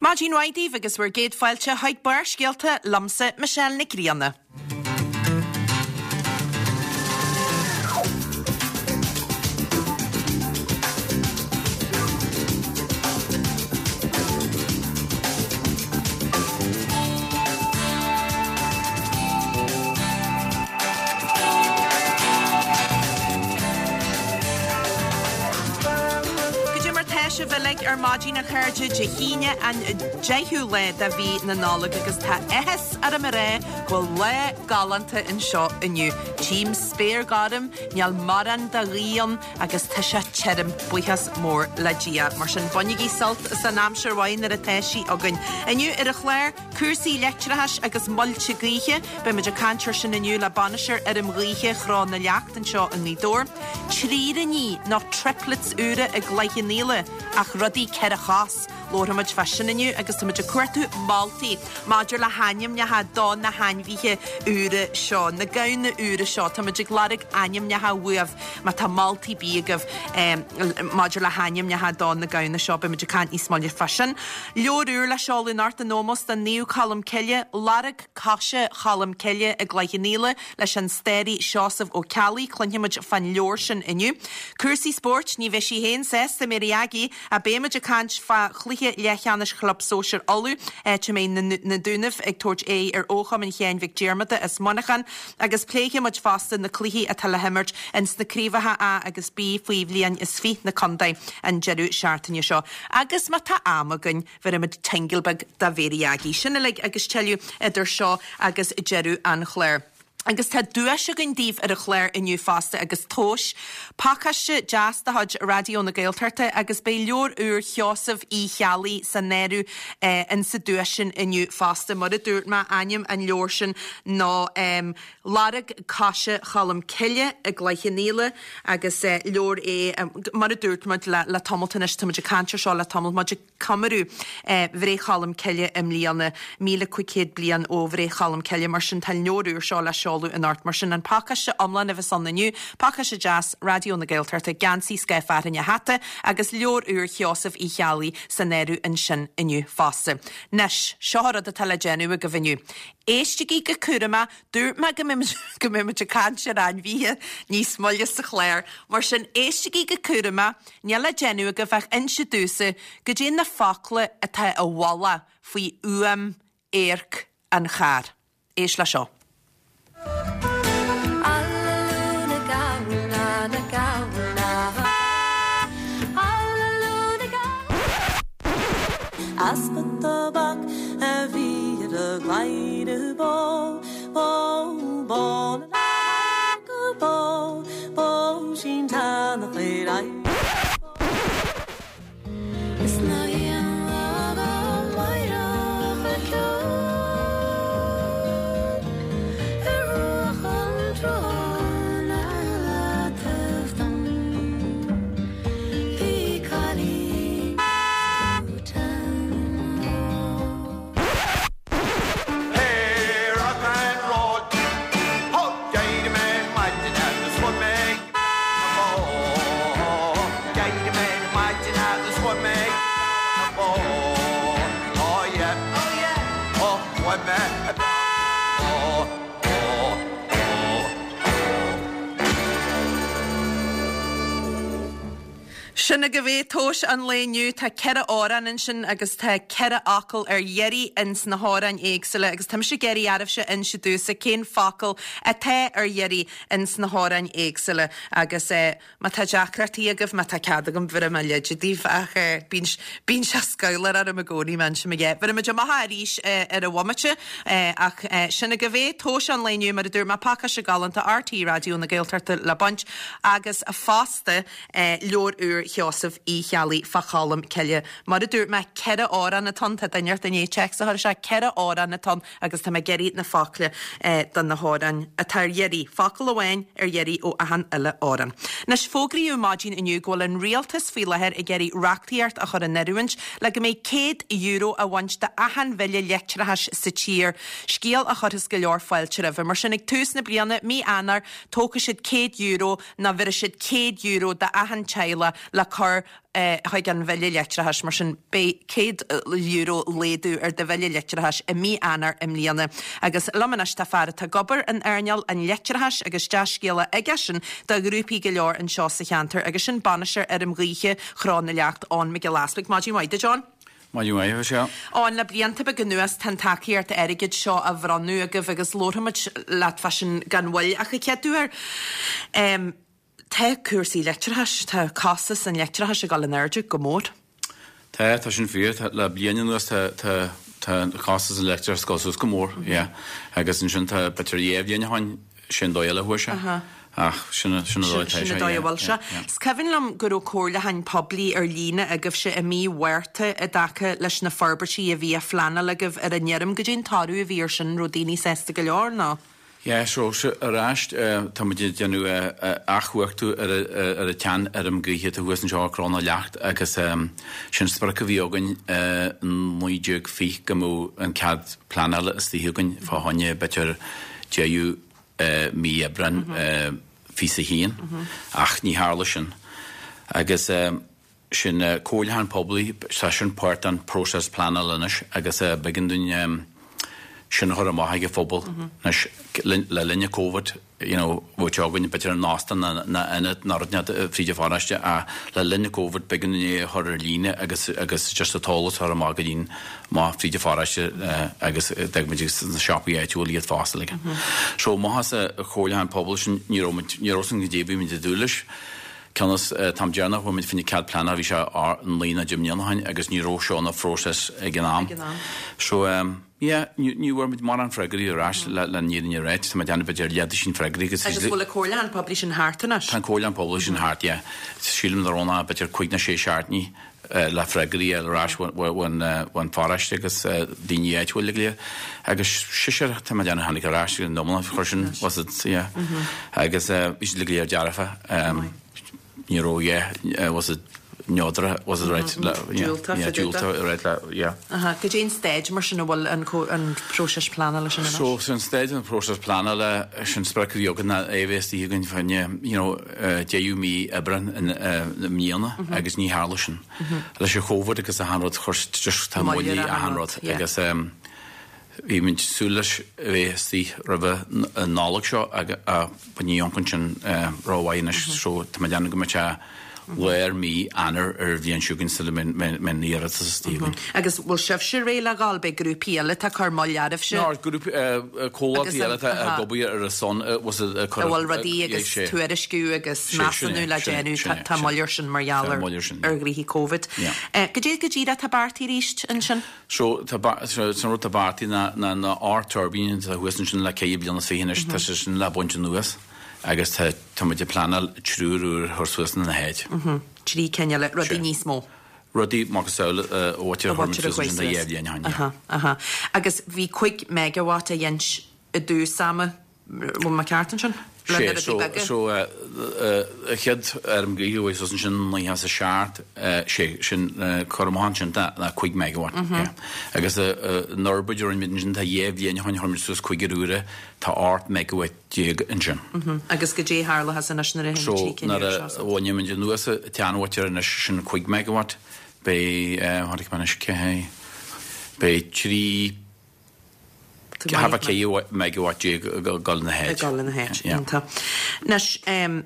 Maidin mhaith daoibh agus bhur gcéad fáilte chuig Barrscéalta liomsa, Michelle Nic Grianna. Goidé mar tá sibh uilig ar maidin a chairde, Dé hAoine an 10ú lá de mhí na Nollag agus tá áthas orm a rá go bhfuil lá galánta anseo inniu. Tchím spéir ghorm, níl mórán de ghaoth ann agus tá sé tirim, buíochas mór le Dia. Mar sin bainigí sult as an aimsir mhaith nuair atá sí againn. Inniu ar an chlár, Cúrsaí leictreachais agus muilte gaoithe, beidh muid ag caint air sin inniu le bainisteoir fheirm ghaoithe Chró na Leacht anseo i nGaoth Dobhair. Tríríní nó triplets úra i gCloich Cheann Fhaola, ach rudaí 4 chos. Labharfaidh muid fá sin inniu agus tá muid ag cuartú moltaí maidir le hainmneacha do na hainmhithe úra seo, na gamhna úra seo. Tá muid ag lorg ainmneacha uaibh má tá moltaí ar bith agaibh maidir le hainmneacha do na gamhna seo. Beidh muid ag caint níos moille fá sin. Leabhar úr le seoladh anocht in ómós do Naomh Colm Cille, Lorg Coise Cholm Cille i gCloich Cheann Fhaola leis an staraí Seosamh Ó Ceallaigh. Cluinfidh muid fán leabhar sin inniu. Cúrsaí spóirt, ní bheidh sí féin sásta, Mary Aggie, ach beidh muid ag caint fá chluiche leathcheannais Chlub Sóisir Uladh, áit a mbeidh na Dúnaibh ag tabhairt aghaidh ar Chumann Sheáin Mhic Diarmada as Muineachán agus pléifidh muid fosta na cluichí atá le himirt ins na craobhacha A agus B faoi bhliain is fiche na contae an deireadh seachtaine seo. Agus má tá am againn, bhéarfaimid tingle beag do Mhary Aggie. Sin uilig agus tuilleadh idir seo agus deireadh an chláir. Agus tá duais againn daoibh ar an chlár inniu fosta agus tomhais, pacáiste deas de chuid Raidió na Gaeltachta agus beidh leabhar úr Sheosaimh Uí Cheallaigh san áireamh insa duais sin inniu fosta. Mar a dúirt mé, ainm an leabhair sin ná. Lorg Coise Cholm Cille i gCloich Cheann Fhaola agus leabhar é, mar a dúirt muid le tamalt anois, tá muid ag caint ar seo le tamalt, muid ag comóradh Bhreith Cholm Cille i mbliana, 1,500 bliain ó Bhreith Cholm Cille, mar sin tá an leabhar úr seo le seoladh anocht, mar sin an pacáiste iomlán a bheas ann inniu, pacáiste deas Raidió na Gaeltachta, geansaí scoth fearthainne hata agus leabhar úr Sheosaimh Uí Cheallaigh san áireamh ansin inniu fosta. Anois, seo an rud atá le déanamh agaibh inniu. Éistigí go cúramach, dúirt mé go go mbeidh muid ag caint ar ainmhithe níos moille sa chlár, mar sin éistigí go cúramach, níl le déanamh agaibh ach inse domhsa goidé na focla atá i bhfolach faoi fhuaim adharc an chairr. Éist le seo. Easpa tobac a bhí ar a gcladhaire bó, bó, bó na go bó, bó sin teannach ar aghaidh. Is ná haon lá go máireach a ceol ar bhruach an tsrutháin ar leataobh dom. Bhí cailín Hey, rock and roll. Ho, d'éirigh mé ar maidin agus chuaigh mé ag na bó. D'éirigh mé ar maidin agus chuaigh mé ag na bó. Oh yeah, oh yeah, oh chuaigh mé ag na bó. Oh, oh, oh. Sin agaibh é, tomhais an lae inniu. Tá 4 amhrán ansin agus tá 4 fhocal ar iarraidh ins na hamhráin éagsúla agus tá mise ag iarraidh oraibhse inse domhsa cén focal atá ar iarraidh ins na hamhráin éagsúla agus eh má tá deacrachtaí agaibh, má tá cead agam bhéarfaidh mé leide daoibh ach eh bíonn bíonn sé scamhlach orm i gcónaí má insim a dhath. Bhéarfaidh muid amach arís eh ar an bhomaite eh ach eh sin agaibh é, tomhais an lae inniu mar a dúirt mé, pacáiste galánta RTÉ Raidió na Gaeltachta le baint agus fosta Leabhar úr Sheosaimh Uí Cheallaigh fá Cholm Cille. Mar a dúirt mé, 4 amhrán atá ann, tá duine inteacht i ndiaidh téacs a chur isteach, 4 amhrán atá ann agus tá mé ag iarraidh na focla do na hamhráin atá ar iarraidh, focal amháin ar iarraidh ó achan uile amhrán. Anois, fógraíodh maidin inniu go bhfuil an rialtas faoi láthair ag iarraidh reachtaíocht a chur in oiriúint le go mbeidh €100 á bhaint de achan bhille leictreachais sa tír, scéal a chuirfeas go leor fáilte roimhe. Mar sin, ag tús na bliana, mí Eanáir, tógfaidh siad €100 nó bhéarfaidh siad €100 d'achan teaghlach le. cur chuig an bhille leictreachais. Mar sin, beidh €100 laghdú ar do bhille leictreachais i mí Eanáir i mbliana. Agus liom anois tá fear atá ag obair in earnáil an leictreachais agus dea-scéala aigesean do ghrúpaí go leor anseo sa cheantar agus sin bainisteoir fheirm ghaoithe Chró na Leacht, Eoin Mac Giolla Easbuig. Maidin mhaith duit, Eoin. Maidin mhaith, a Mhichelle. Eoin, le blianta beaga anuas tá an tacaíocht airgid seo á bhronnadh agaibh agus labharfaimid leat fá sin gan mhoill ach an chéad uair, tá cúrsaí leictreachais, tá costas an leictreachais ag dul in airde go mór. Tá, tá sin fíor. Tá, le bliain anuas tá, tá, tá costas an leictreachais ag dul suas go mór, yeah. Agus ansin tá, b'fhéidir dhá bhliain ó shin, sin dóigh eile a chuaigh sé. Ach sin, sin an dóigh atá sé, Sin an dóigh a bhfuil sé. Is cuimhin liom go raibh comhairliúcháin poiblí ar líne agaibhse i mí Mhárta i dtaca leis na forbairtí a bhí á phleanáil agaibh ar an fheirm. Goidé an toradh a bhí ar sin, an raibh daoine sásta go leor nó? Yeah, so, ar ais, tá muid ag déanamh athchumhachtú ar an tseanfheirm gaoithe atá thuas anseo i gCró na Leacht agus sin sprioc a bhí againn i 1920 go mbeadh an cead pleanála istigh againn fá choinne b'fhéidir deireadh mí Aibreáin 21 ach ní tharla sin agus sin comhairliúchán poiblí, tá sin páirt den próiseas pleanála anois agus b'éigean dúinn sin a chur amach ag an phobal anois le linn an Covid, you know, bheadh sé againn b'fhéidir in óstán ná ionad ná rud inteacht fríd an pharóiste ach le linn an Covid b'éigean dúinn é a chur ar líne agus agus just an t-eolas a chur amach go dtí'n amach fríd an pharóiste agus d'fhág muid sna siopaí áitiúla iad fosta like. So amach as an chomhairliúchán pobail sin ní raibh muid, ní raibh san goidé a bhí muid ag dúil leis. Cionn is an t-am deireanach a bhfuair muid fá choinne cead pleanála bhí sé 9 nó 10 mbliana ó shin agus ní raibh seo ina phróiseas ag an am. So yeah, ní bhfuair muid mórán freagraí ar ais le an fhírinne a ráit. Tá mé ag déanamh b'fhéidir leathduisín freagraí agus. Agus bhfuil an comhairliúchán poiblí sin thart anois? Tá an comhairliúchán poiblí sin thart, yeah. Sílim nach raibh ach b'fhéidir cúig nó sé seachtainí le freagraí a fháil ar ais ón pharóiste agus daoine áitiúil go léir. Agus seisear, tá mé ag déanamh tháinig ar ais an iomlán chuir sin, was it, yeah. Agus bhí siad go léir dearfa. Ní raibh, yeah, was it neodrach, was it right? Diúltach, yeah, diúltach, right, yeah. Aha, goidé an staid mar sin a bhfuil an próiseas pleanála sin anois? So, san staid an próiseas pleanála, sin sprioc a bhí againn ná é a bheith istigh againn fá choinne, you know, deireadh mí Aibreán i mbliana agus ní tharla sin. Leis an Chóvid agus achan rud chuir just tá moill ar achan rud agus bhí muid súil leis a bheith istigh roimhe an Nollaig seo ach ní amharcann sin rómhaith anois so tá mé ag déanamh go mbeidh sé lár mí Eanáir ar an bhliain seo chugainn sula mbeidh an iarratas istigh againn. Agus bhfuil sibhse réidh le dhul? Beidh grúpaí eile atá ag cur moill oraibhse? Ná, grúpaí, comhlachtaí eile atá ag obair ar a son, was it, ag cur. A bhfuil rudaí agus tuairisciú agus measúnú le déanamh, tá moill air sin mar gheall ar ghnoithí Covid. Goidé go díreach atá beartaithe arís ansin? So, tá, san rud atá beartaithe ná na ocht tuirbín atá thuas ansin le ceithre bliana is fiche anois, tá sé sin le baint anuas. Agus tá, tá muid ag pleanáil triúr úr a chur suas ina háit. Trí cinn eile, rudaí níos mó. Rudaí macasamhail a bhaintear a chuir muid suas ansin dhá bhliain ó shin, yeah. Aha, aha. Agus bhí 5 megawatt á dhéint i dtús ama, bhfuil mé ceart ansin? Le na rudaí so, beaga? So, an chéad fheirm gaoithe a chuaigh suas ansin i 97, sé sin, cur amach ansin ná 5 megawatt, yeah. Agus an fhorbairt a rinne muid ansin, tá dhá bhliain ó shin chuir muid suas cúigear úra, tá 18 megawatt ansin. Agus goidé a tharlóchas anois nuair a théann na trí cinn úr seo So, nuair a bhainfidh muid anuas an tseanmhaotir anois, sin 5 megawatt, beidh, tháinig mé anois, cé, beidh trí, thart fá 14 megawatt ag dul ina háit. Ag dul ina háit, iontach. Anois,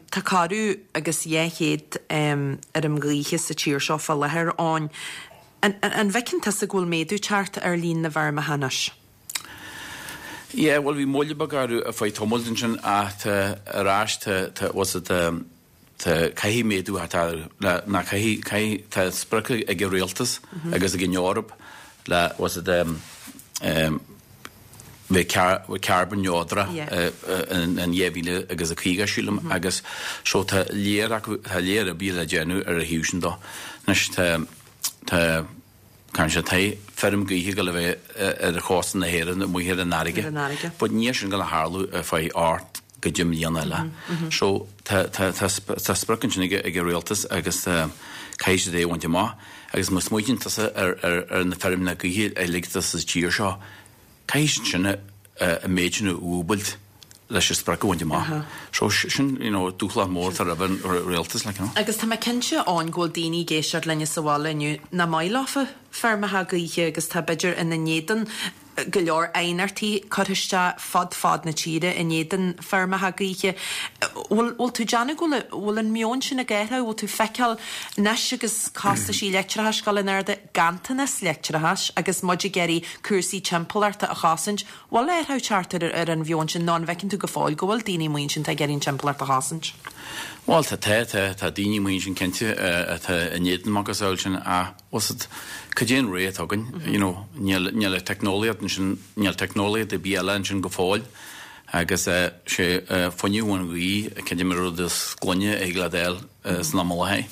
tá corradh agus 200 fheirm ghaoithe sa tír seo fá láthair, Eoin. An bhfeiceann tusa go bhfuil méadú ag teacht ar líon na bhfeirmeacha anois? Yeah, bhuel bhí moill beag orthu ar feadh tamaill ansin ach tá ar ais tá tá what's it tá tá caithfidh méadú a theacht orthu le ná caithfidh caithfidh tá sprioc ag an rialtas agus ag an Eoraip le what's it um um bheith car carbon neodrach in in 2050 sílim agus so tá léir acu tá léir oibre le déanamh ar a thaobh sin dó. Anois tá tá Caithfidh sé tá feirm gaoithe ag dul a bheith ar chósta na hÉireann amuigh ar an fharraige. But níl sin ag dul a tharlú ar feadh 8 go 10 mbliana eile. So tá tá tá tá sprioc ansin ag ag an rialtas agus caithfidh siad é a bhaint amach. Agus má smaoitíonn tusa ar ar ar na feirmeanna gaoithe uilig atá sa tír seo, caithfidh siad sin an méid sin a dhúbailt. Leis an sprioc a bhaint amach. So sin, you know, dúshlán mór atá roimh an rialtas, like, you know. Agus tá mé cinnte Eoin go bhfuil daoine ag éisteacht linne sa bhaile inniu nach maith leofa feirmeacha gaoithe agus tá b'fhéidir ina n-éadan go leor aighneachtaí curtha isteach fud fad na tíre in éadan feirmeacha gaoithe. Bhfuil, bhfuil tú ag déanamh go bhfuil, bhfuil an meon sin ag athrú, bhfuil tú ag feiceáil anois agus costaisí leictreachais ag dul in airde, ganntanas leictreachais agus muid ag iarraidh cúrsaí timpeallachta a chosaint, Bhfuil athrú ag teacht ar an mheon sin nó an bhfeiceann tú go fóill go bhfuil daoine amuigh ansin atá ag iarraidh an timpeallacht a chosaint? Bhuel, tá, tá, tá, tá daoine amuigh ansin cinnte atá in éadan macasamhail sin ach, bhfuil 's a'd, cad é an ré atá againn, you know, níl, níl an teicneolaíocht ansin, níl teicneolaíocht ar bith eile ansin go fóill agus sé fuinneamh ón ghaoth, creidim an rud is glaine a thig leat a fháil. san am i láthair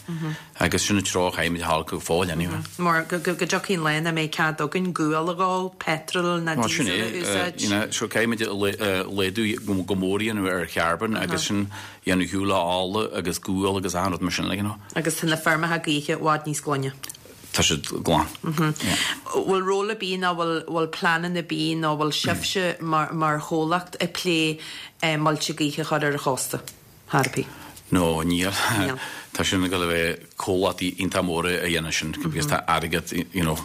agus sin an treo a chaithfimid a ghabháil go fóill anyway. Mar go dtiocfaidh an lá nach mbeidh cead againn gual a dhó, petrol ná diesel a úsáid. You know, so caithfimid laghdú go mór a dhéanamh ar charbón agus sin a dhéanamh ar shiúl ó ola agus gual agus achan rud mar sin like, you know. Agus tá na feirmeacha gaoithe i bhfad níos glaine. Tá siad glan. Bhfuil ról ar bith nó bhfuil bhfuil pleananna ar bith nó bhfuil sibhse mar mar chomhlacht ag plé muilte gaoithe a chur ar an chósta? Thar ar bith. No, níl. Níl. Tá sin ag dul a bheith comhlachtaí iontach móra a dhéanamh sin because tá airgead, you know,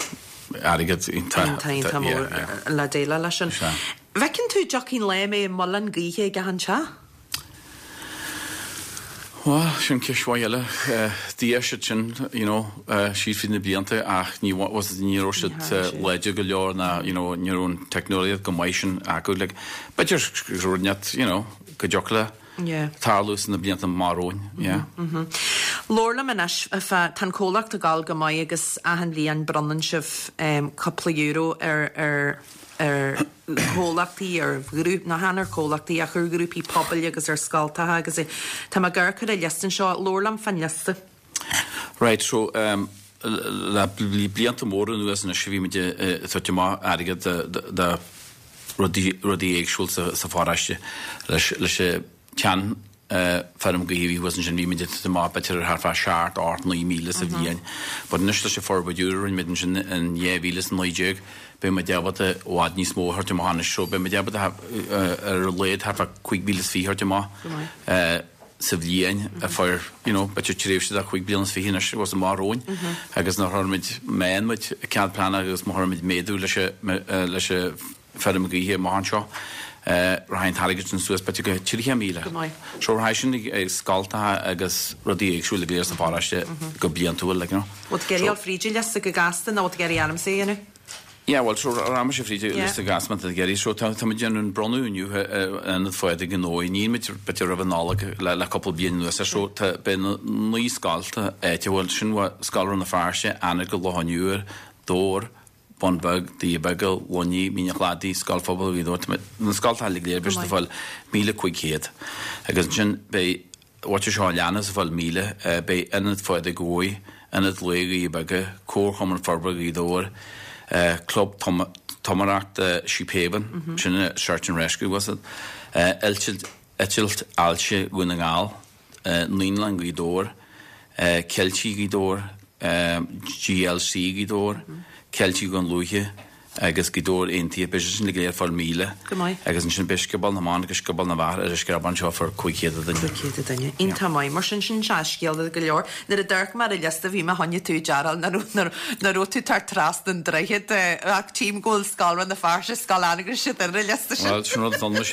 airgead iontach, Iontach, iontach mór yeah, yeah. le déileáil leis sin. Sea. Bhfeiceann tú dtiocfaidh an lá a mbeidh muileann gaoithe ag achan teach? Bhuel, sin ceist mhaith eile. D'fhéach siad sin, you know, síos fríd na blianta ach ní, was it, ní raibh siad láidir go leor ná, you know, ní raibh an teicneolaíocht go maith sin acu. Like, b'fhéidir go raibh, you know, go dtiocfadh le tarlú sna blianta amach romhainn, yeah. Labhair liom anois fá, tá an comhlacht ag gabháil go maith agus achan bhliain bronnann sibh cúpla euro ar ar ar chomhlachtaí, ar ghrúpaí, nó chan ar chomhlachtaí ach ar ghrúpaí pobail agus ar scoltacha agus tá mé ag amharc ar an liosta anseo, labhair liom fán liosta. Right, so le blianta móra anuas anois bhí muid ag tabhairt amach airgead do rudaí éagsúil sa pharóiste. Leis an tsean feirm gaoithe a bhí thuas ansin bhí muid ag tabhairt amach b'fhéidir thart fá 7, 8, 9,000 sa bhliain. But anois leis an forbairt úr a rinne muid ansin in 2019 beidh muid ábalta i bhfad níos mó a thabhairt amach anois. So beidh muid ábalta ar a laghad thart fá 5,000 is fiche a thabhairt amach. sa bhliain a fuair, you know, b'fhéidir tréimhse de chúig bliana is fiche anois agus amach romhainn agus nuair a chuirimid, má fhaigheann muid cead pleanála agus má chuirimid méadú leis an, leis an feirm gaoithe amach anseo, rachaidh an t-airgead sin suas b'fhéidir go 30,000. Go maith. So rachaidh sin ag scoltacha agus rudaí éagsúla go léir sa pharóiste go bliantúil, like, you know. Bhfuil tú ag iarraidh dul fríd an liosta go gasta nó bhfuil tú ag iarraidh ormsa é a dhéanamh? Yeah, bhuel, so rachaidh mise fríd an liosta go gasta má tá tú ag iarraidh. So tá muid ag déanamh an bronnadh inniu in Ionad Phádraig i nDomhaigh. Níl muid b'fhéidir roimh an Nollaig le le cúpla bliain anuas ar so tá beidh na naoi scolta áitiúil sin Scoil Rann na Feirste, Anagail, Loch an Iúir, Dobhar, Bun Beag, Doirí Beaga, Luinnigh, Mín an Chladaigh, Scoil Phobail Ghaoth Dobhair. Tá na scoltacha uilig go léir beidh siad ag fáil 1,500 agus ansin beidh Bhfuil seo a leanas ag fáil 1,000, beidh Ionad Phádraig Dhomhaigh, Ionad Lae Dhoirí Beaga, Comharchumann Forbartha Ghaoth Dobhair, Club Tumaireachta Sheephaven, sin é Search and Rescue, was it? Eitilt Ailse Dhún na nGall, Naíolann Ghaoth Dobhair, Ceiltigh Ghaoth Dobhair, GLC Ghaoth Dobhair, Ceiltigh Dhún Lúiche, agus Gaoth Dobhair Aontaithe, beidh siad sin go léir ag fáil 1,000. Go maith. Agus ansin beidh Scioból na mBan agus Scioból na bhFear ar an Screabán seo fá 500 duine. 500 duine. Iontach maith. Mar sin, sin dea-scéala go leor. Nuair a d'amharc mé ar an liosta bhí mé choinne tú a dearáil nach raibh nach raibh tú ag teacht trasna an droichid ach tchím go bhfuil Scoil Rann na Feirste, Scoil Anagaire siad ar an liosta sin. Bhuel, sin rud a d'fhan mise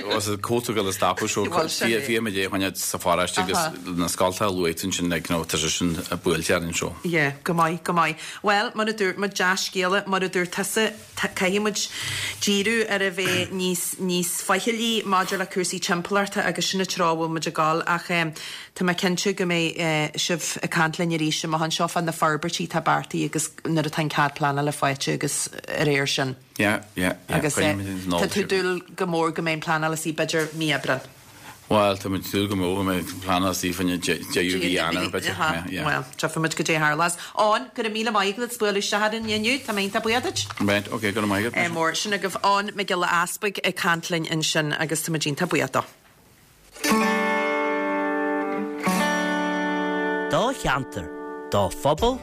was it cóta go le stopadh so Bhuel, sin é. bhí muid é a choinneáil sa pharóiste agus na scoltacha a luaigh tú ansin like, you know, tá sé sin buailte orainn so. Yeah, go maith, go maith. Bhuel, mar a dúirt muid, dea-scéala, mar a dúirt tusa, caithfidh muid díriú ar a bheith níos, níos faichillí maidir le cúrsaí timpeallachta agus sin an treo a bhfuil muid ag dul ach tá mé cinnte go mbeidh sibh ag caint linn arís amach anseo fá na forbairtí atá beartaithe agus nuair atá an cead pleanála faighte agus a réir sin. Yeah, yeah, yeah. Agus tá tú ag dúil go mór go mbeidh an pleanáil istigh b'fhéidir mí Aibreán. Bhuel, tá muid ag súil go mór go mbeidh pleanáil istigh fá deireadh mhí Eanáir, b'fhéidir. Yeah, yeah. Bhuel, tchífidh muid goidé a tharlós. Eoin, go raibh míle maith agat as bualadh isteach orainn inniu. Tá mé iontach buíoch duit. Right, ok, go raibh maith agat. Ádh mór. Sin agaibh Eoin Mac Giolla Easpaig ag caint linn ansin agus tá muid iontach buíoch dó. Do cheantar, do phobal,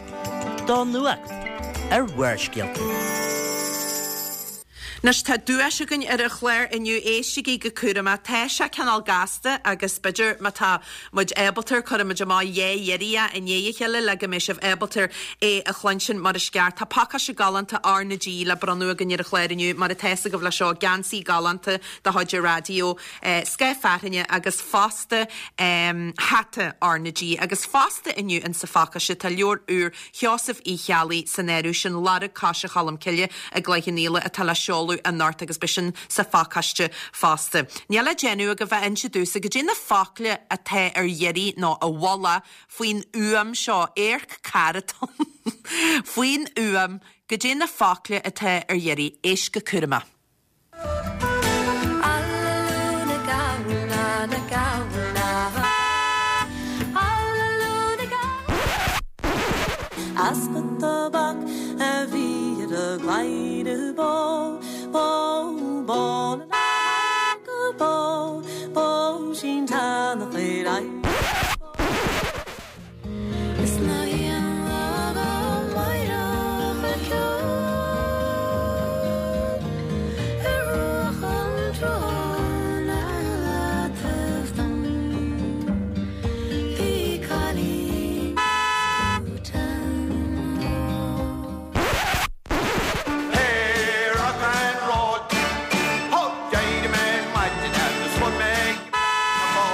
do nuacht ar Bharrscéalta. Anois tá duais againn ar an chlár inniu, éistigí go cúramach, tá sé cineál gasta agus b'fhéidir má tá muid ábalta cuirfidh muid amach dhá iarraidh i ndiaidh a chéile le go mbeidh sibh ábalta é a chluinstin mar is ceart. Tá pacáiste galánta R na G le bronnadh againn ar an chlár inniu, mar atá fhios agaibh leis seo, geansaí galánta de chuid an raidió, scáth fearthainne agus fosta hata R na G. Agus fosta inniu insa phacáiste tá leabhar úr Sheosaimh Uí Cheallaigh san áireamh sin Lorg Coise Cholm Cille i gCloich Cheann Fhaola atá le seoladh anocht agus beidh sin sa phacáiste fosta. Níl le déanamh agaibh ach inse domhsa goidé na focla atá ar iarraidh nó i bhfolach faoin fhuaim seo, amharc carr atá ann, faoin fhuaim, goidé na focla atá ar iarraidh. Éist go cúramach. Easpa tobac a bhí ar a gcladhaire bó, bó, bó na go bó, bó sin tánach ar aghaidh. Is ná haon lá go máireach a ceol ar bhruach an tsrutháin ar leataobh dom. Bhí cailín is Hey, rock and roll. Ho, d'éirigh mé ar maidin agus fuair mé na bó.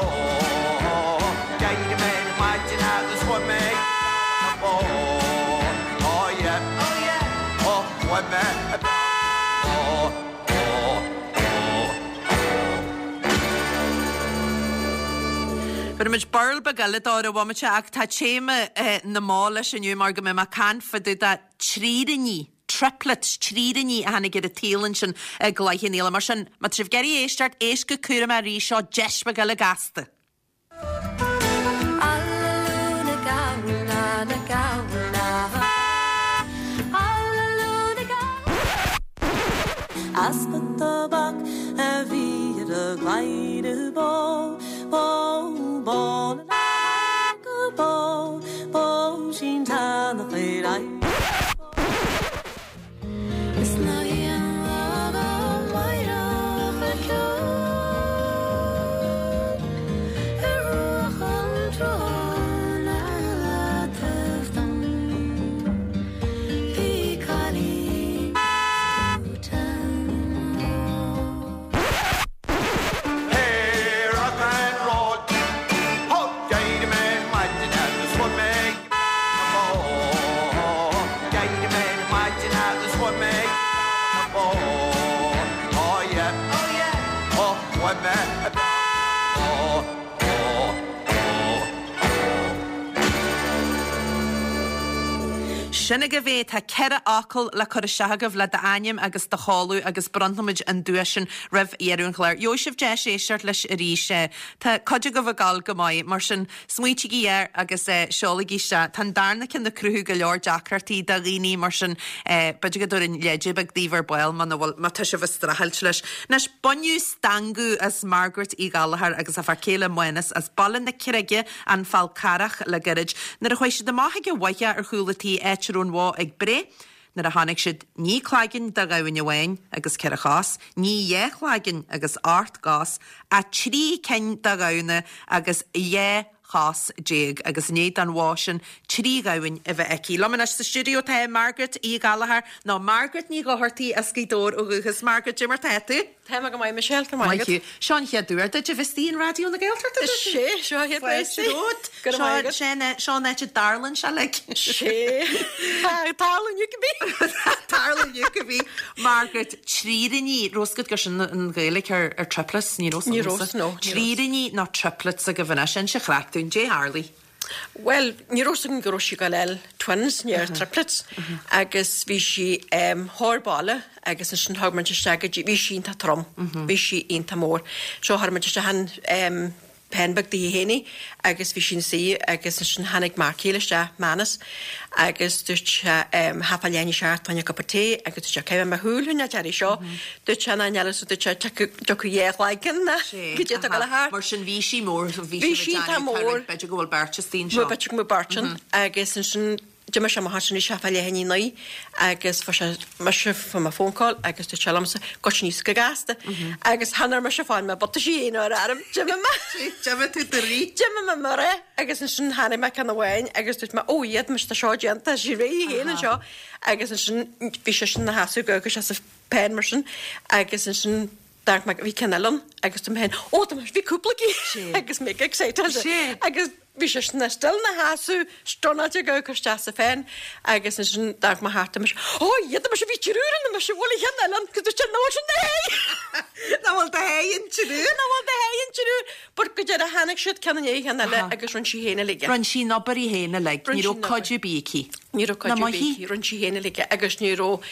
D'éirigh mé ar maidin agus fuair mé na bó. Oh yeah, oh yeah, oh fuair mé na bó. Oh, oh, oh. Bhéarfaidh muid burl beag eile dó ar an bhomaite ach tá téama na mbó leis inniu mar go mbeidh mé ag caint fá dtaobh de tríríní, triplets, tríríní a tháinig ar an tsaol ansin i gCloich Cheann Fhaola. Mar sin, má tá sibh ag iarraidh éisteacht, éist go cúramach arís, seo deis beag eile gasta. Easpa tobac a bhí ar a gcladhaire bó, bó, bó na go bó, bó sin tánach ar aghaidh. Is ná haon lá go máireach a ceol ar bhruach an tsrutháin ar leataobh dom. Bhí cailín Hey, rock and roll. Ho, d'éirigh mé ar maidin agus fuair mé na bó. D'éirigh mé ar maidin agus fuair mé na bó. Oh yeah, oh yeah, oh fuair mé na bó. Oh, oh, oh. Sin agaibh é, tá 4 fhocal le cur isteach agaibh le d'ainm agus do sheoladh agus bronnfaimid an duais sin roimh dheireadh an chláir. Gheobhaidh sibh deis éisteacht leis arís. Tá cuid agaibh ag gabháil go maith, mar sin smaoitígí air agus seolaigí isteach. Tá an darna ceann ag cruthú go leor deacrachtaí do dhaoine, mar sin b'fhéidir go dtabharfainn leide beag daoibh ar ball muna bhfuil, má tá sibh ag streachailt leis. Anois, baineadh stangadh as Margaret Uí Ghallchóir agus a fear céile Mánas as Baile na Creige, An Fál Carrach le gairid. Nuair a chuaigh siad amach ag an bhfaiche ar chúl a tí áit a raibh an bhó ag breith, nuair a chonaic siad ní cloigeann de ghamhain amháin agus 4 chos, ní 2 chloigeann agus 8 gcos, ach 3 cinn de ghamhna agus 12 chos agus i ndiaidh don bhó sin 3 ghamhain a bheith aici. Liom anois sa stiúideo tá Margaret Uí Ghallchóir, nó Margaret Ní Dhochartaigh as Gaoth Dobhair ó dhúchas. Margaret, cad é mar tá tú? Tá mé go maith Michelle, go raibh maith agat. Seo an chéad uair duit a bheith istigh in Raidió na Gaeltachta. Is é, seo an chéad uair istigh. Go raibh maith agat. Seo an áit a dtarlann sé like. Sé. Tarlann you be. Tarlann you be. Margaret, tríríní, raibh fhios agat gur sin an Ghaeilge ar ar triplets, ní raibh Ní raibh, no. Tríríní nó triplets agaibh anois, inis an chraic dúinn, dé tharlaigh. Bhuel, ní raibh 's agam go raibh sí ag gabháil a fháil twins, ní triplets, agus bhí sí chóir baile agus ansin thug muid isteach go dtí, bhí sí iontach trom, bhí sí iontach mór. So chuir muid isteach an pen beag daoithi féin í agus bhí sí ina suí agus ansin tháinig m'fhear céile isteach, Manus, agus dúirt sé thá fá leath i ndiaidh a seacht fá choinne cup of tea agus dúirt sé caithfidh mé mo shúil a choinneáil uirthi seo, dúirt sé ná níl so dúirt sé tiocfaidh dhá chloigeann ná go dté tú ag dul thart. Mar sin bhí sí mór, bhí sí ag déanamh b'fhéidir go bhfuil beirt istigh anseo. B'fhéidir go bhfuil beirt ann agus ansin. D'imigh sé amach ansin bhí sé fá leath i ndiaidh 9 agus fuair sé mise fuair mé phone call agus dúirt sé liomsa goitse aníos go gasta agus chan fhuair mise fáil mo bhutaisí fhéin ar fheirm d'imigh mé D'imigh tú de rith. D'imigh mé mar é agus ansin tháinig mé ceann amháin agus dúirt mé ó iad mise tá seo déanta tá sí réidh féin anseo agus ansin bhí seisean ina sheasamh go agus sé sa pen mar sin agus ansin d'amharc mé bhí ceann eile ann agus dúirt mé féin ó tá bhí cúpla cinn agus mé excited agus bhí seisean still ina sheasamh stunnáilte ag amharc isteach sa pen agus ansin d'amharc mé thart mise ó iad mise bhí triúr ann mise bhfuil an ceann eile ann agus dúirt sé nach bhfuil sin do sháith Nach bhfuil do sháith an triúr? Nach bhfuil do sháith an triúr but go deireadh tháinig siad ceann i ndiaidh an cheann eile agus rinne sí féin uilig é. Rinne sí an obair í féin uilig, ní raibh cuid ar bith aici. Ní raibh cuid ar bith aici, rinne sí féin uilig é agus ní raibh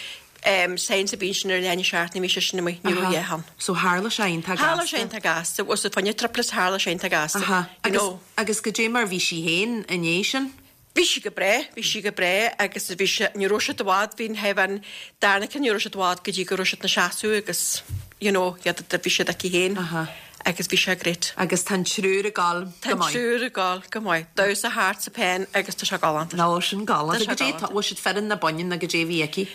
signs ar bith ansin ar leath i ndiaidh a seacht nuair a bhí seisean amuigh, ní raibh a dhath ann. So tharla sé iontach gasta. Tharla sé iontach gasta, was fá choinne triplets tharla sé iontach gasta. Aha. You know. Agus goidé mar bhí sí féin i ndiaidh sin? Bhí sí go breá, bhí sí go breá agus bhí sí, ní raibh siad i bhfad, bhí an thaobh an darna ceann ní raibh siad i bhfad go dtí go raibh siad ina seasamh agus you know, iad, bhí siad aici féin. Aha. Agus bhí sé great. Agus tá an triúr ag gabháil go maith. Tá an triúr ag gabháil go maith. Damhsa thart sa pen agus tá sé galánta. Nó sin galánta. Tá sé galánta. Bhfuil siad fireann nó baineann nó goidé a bhí aici?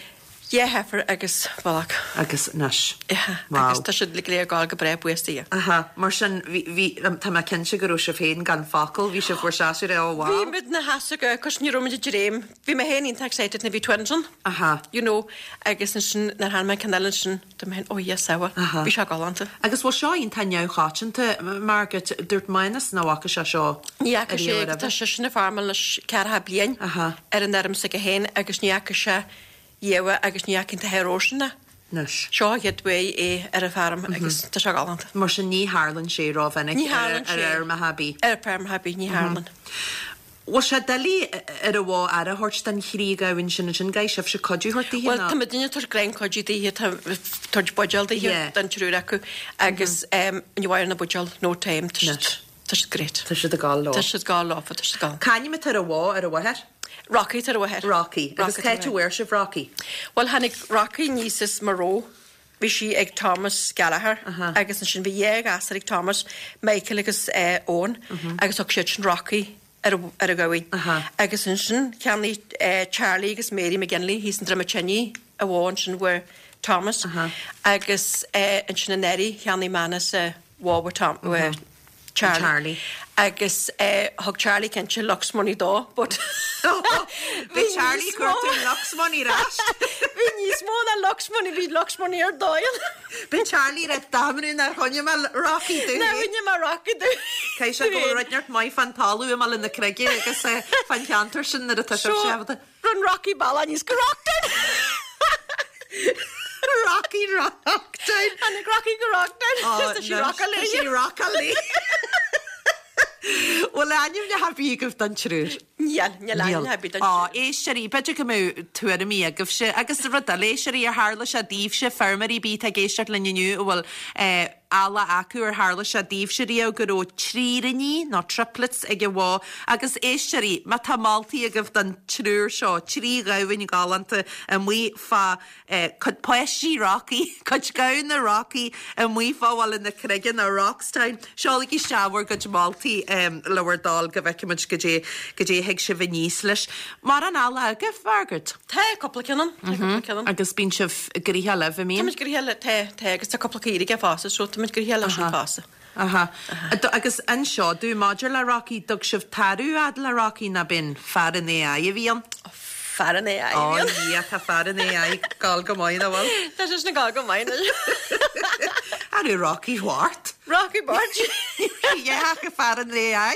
Dhá heifer agus bullock. Agus anois. Yeah. Wow. Agus tá siad go léir ag gabháil go breá buíochas do Dhia. Aha. Mar sin bhí, bhí, tá mé cinnte go raibh sibh féin gan focal, bhí sibh bhur seasamh ar, oh wow. Bhí muid ina sheasamh go, cos ní raibh muid ag dréim. Bhí mé féin iontach excited nuair a bhí twins ann. Aha. You know, agus ansin nuair a tháinig an ceann eile ansin, Dúirt mé féin, oh yes, sea, Aha. bhí sé galánta. Agus bhfuil seo iontach neamhchoitianta, Margaret? Dúirt Manus nach bhfaca sé seo Ní fhaca sé, ariamh tá roimhe. seisean ag farmáil anois ceathracha bliain Aha. ar an fheirm s'aige féin agus ní fhaca sé riamh agus ní fhaca an t-athair sin é. Anois. Seo an chéad uair é ar an bhfeirm agus tá sé galánta. Mar sin ní tharlann sé rómhinic Ní ar tharlann ar sé. fheirmeacha ar bith. Ar feirmeacha ar bith, ní tharlann. Bhfuil sé doiligh ar an bhó aire a thabhairt don thrí ghamhain sin ansin, gcaithfidh sibhse cuidiú a thabhairt daoithe Bhuel, nó? tá muidinne ag tabhairt gráin cuidiú daoithe, tá tabhairt buidéal daoithe Yeah. don triúr acu agus ní mhair na buidéal no time, tá siad, tá siad great. Tá siad ag gabháil leo. Tá siad ag gabháil leofa, tá siad ag gabháil. C'ainm atá ar an bhó ar an mháthair? Rocky atá ar an mháthair. Rocky. Agus Rocky cá atá ar háit an a bhfuair sibh Rocky? Bhuel, tháinig Rocky aníos as Maigh Eo. Bhí sí ag Thomas Gallagher agus ansin bhí dhá ghasúr ag Thomas, Michael agus Owen agus thug siad sin Rocky ar ar an ghamhain. Agus ansin cheannaigh Charlie agus Mary McGinley thíos i nDroim an tSinnigh an bhó ansin uaidh Thomas agus ansin anuraidh cheannaigh Manus an bhó uaidh Tom uaidh Charlie. Charlie. Agus thug Charlie cinnte Lux Money dó but bhí Charlie cuartú Lux Money ar ais. Bhí níos mó ná Lux Money, bhí Lux Money ar dóigh. Bhí Charlie rá damnú nár choinnigh mé Rocky dom. Nár choinnigh mé Rocky dom. Caithfidh sé go bhfuil rud neart maith fán talamh i mBaile na Creige agus fán cheantar sin nuair atá sibh So, Rinn Rocky bealach aníos go Rocktown. Rocky Rocktown. Tháinig Rocky go Rocktown. Tá sí rockáil Tá sí rockáil léi. Bhfuil ainmneacha ar bith agaibh don triúr? Níl, níl ainmneacha ar bith don Ó, triúr. éisteoirí, b'fhéidir go mbeadh tuairimí agaibhse agus rud eile, éisteoirí, ar tharla sé daoibhse, feirmeoirí ar bith atá ag éisteacht linn inniu a bhfuil eallach acu ar tharla sé daoibhse riamh go raibh tríríní nó triplets ag an bhó agus éisteoirí, má tá moltaí agaibh don triúr seo, trí ghamhain ghalánta amuigh fá cuid páistí Rocky, cuid gamhna Rocky amuigh fá Bhaile na Creige nó Rockstown, seolaigí isteach bhur gcuid moltaí le bhur dtoil go bhfeicfimid goidé goidé a thig sibh aníos leis. Mórán eallach agaibh, Margaret? Tá cúpla ceann ann, tá cúpla ceann ann. Agus bíonn sibh gnoitheach libh, an mbíonn? Táimid gnoitheach le, tá, tá, agus tá cúpla caoirigh aige fosta, so táimid gnoitheach leis sin fosta. Aha. Agus anseo, dú maidir le Rocky, dtug sibh tarbh fhad le Rocky nó b'in fear an AI a bhí ann? Fear an AI a bhí ann. Ó yeah, tá fear an AI ag gabháil go maith, nach bhfuil? Tá sé sin ag gabháil go maith anois. An raibh Rocky Bhart? Rocky Bart. Yeah, fear an AI.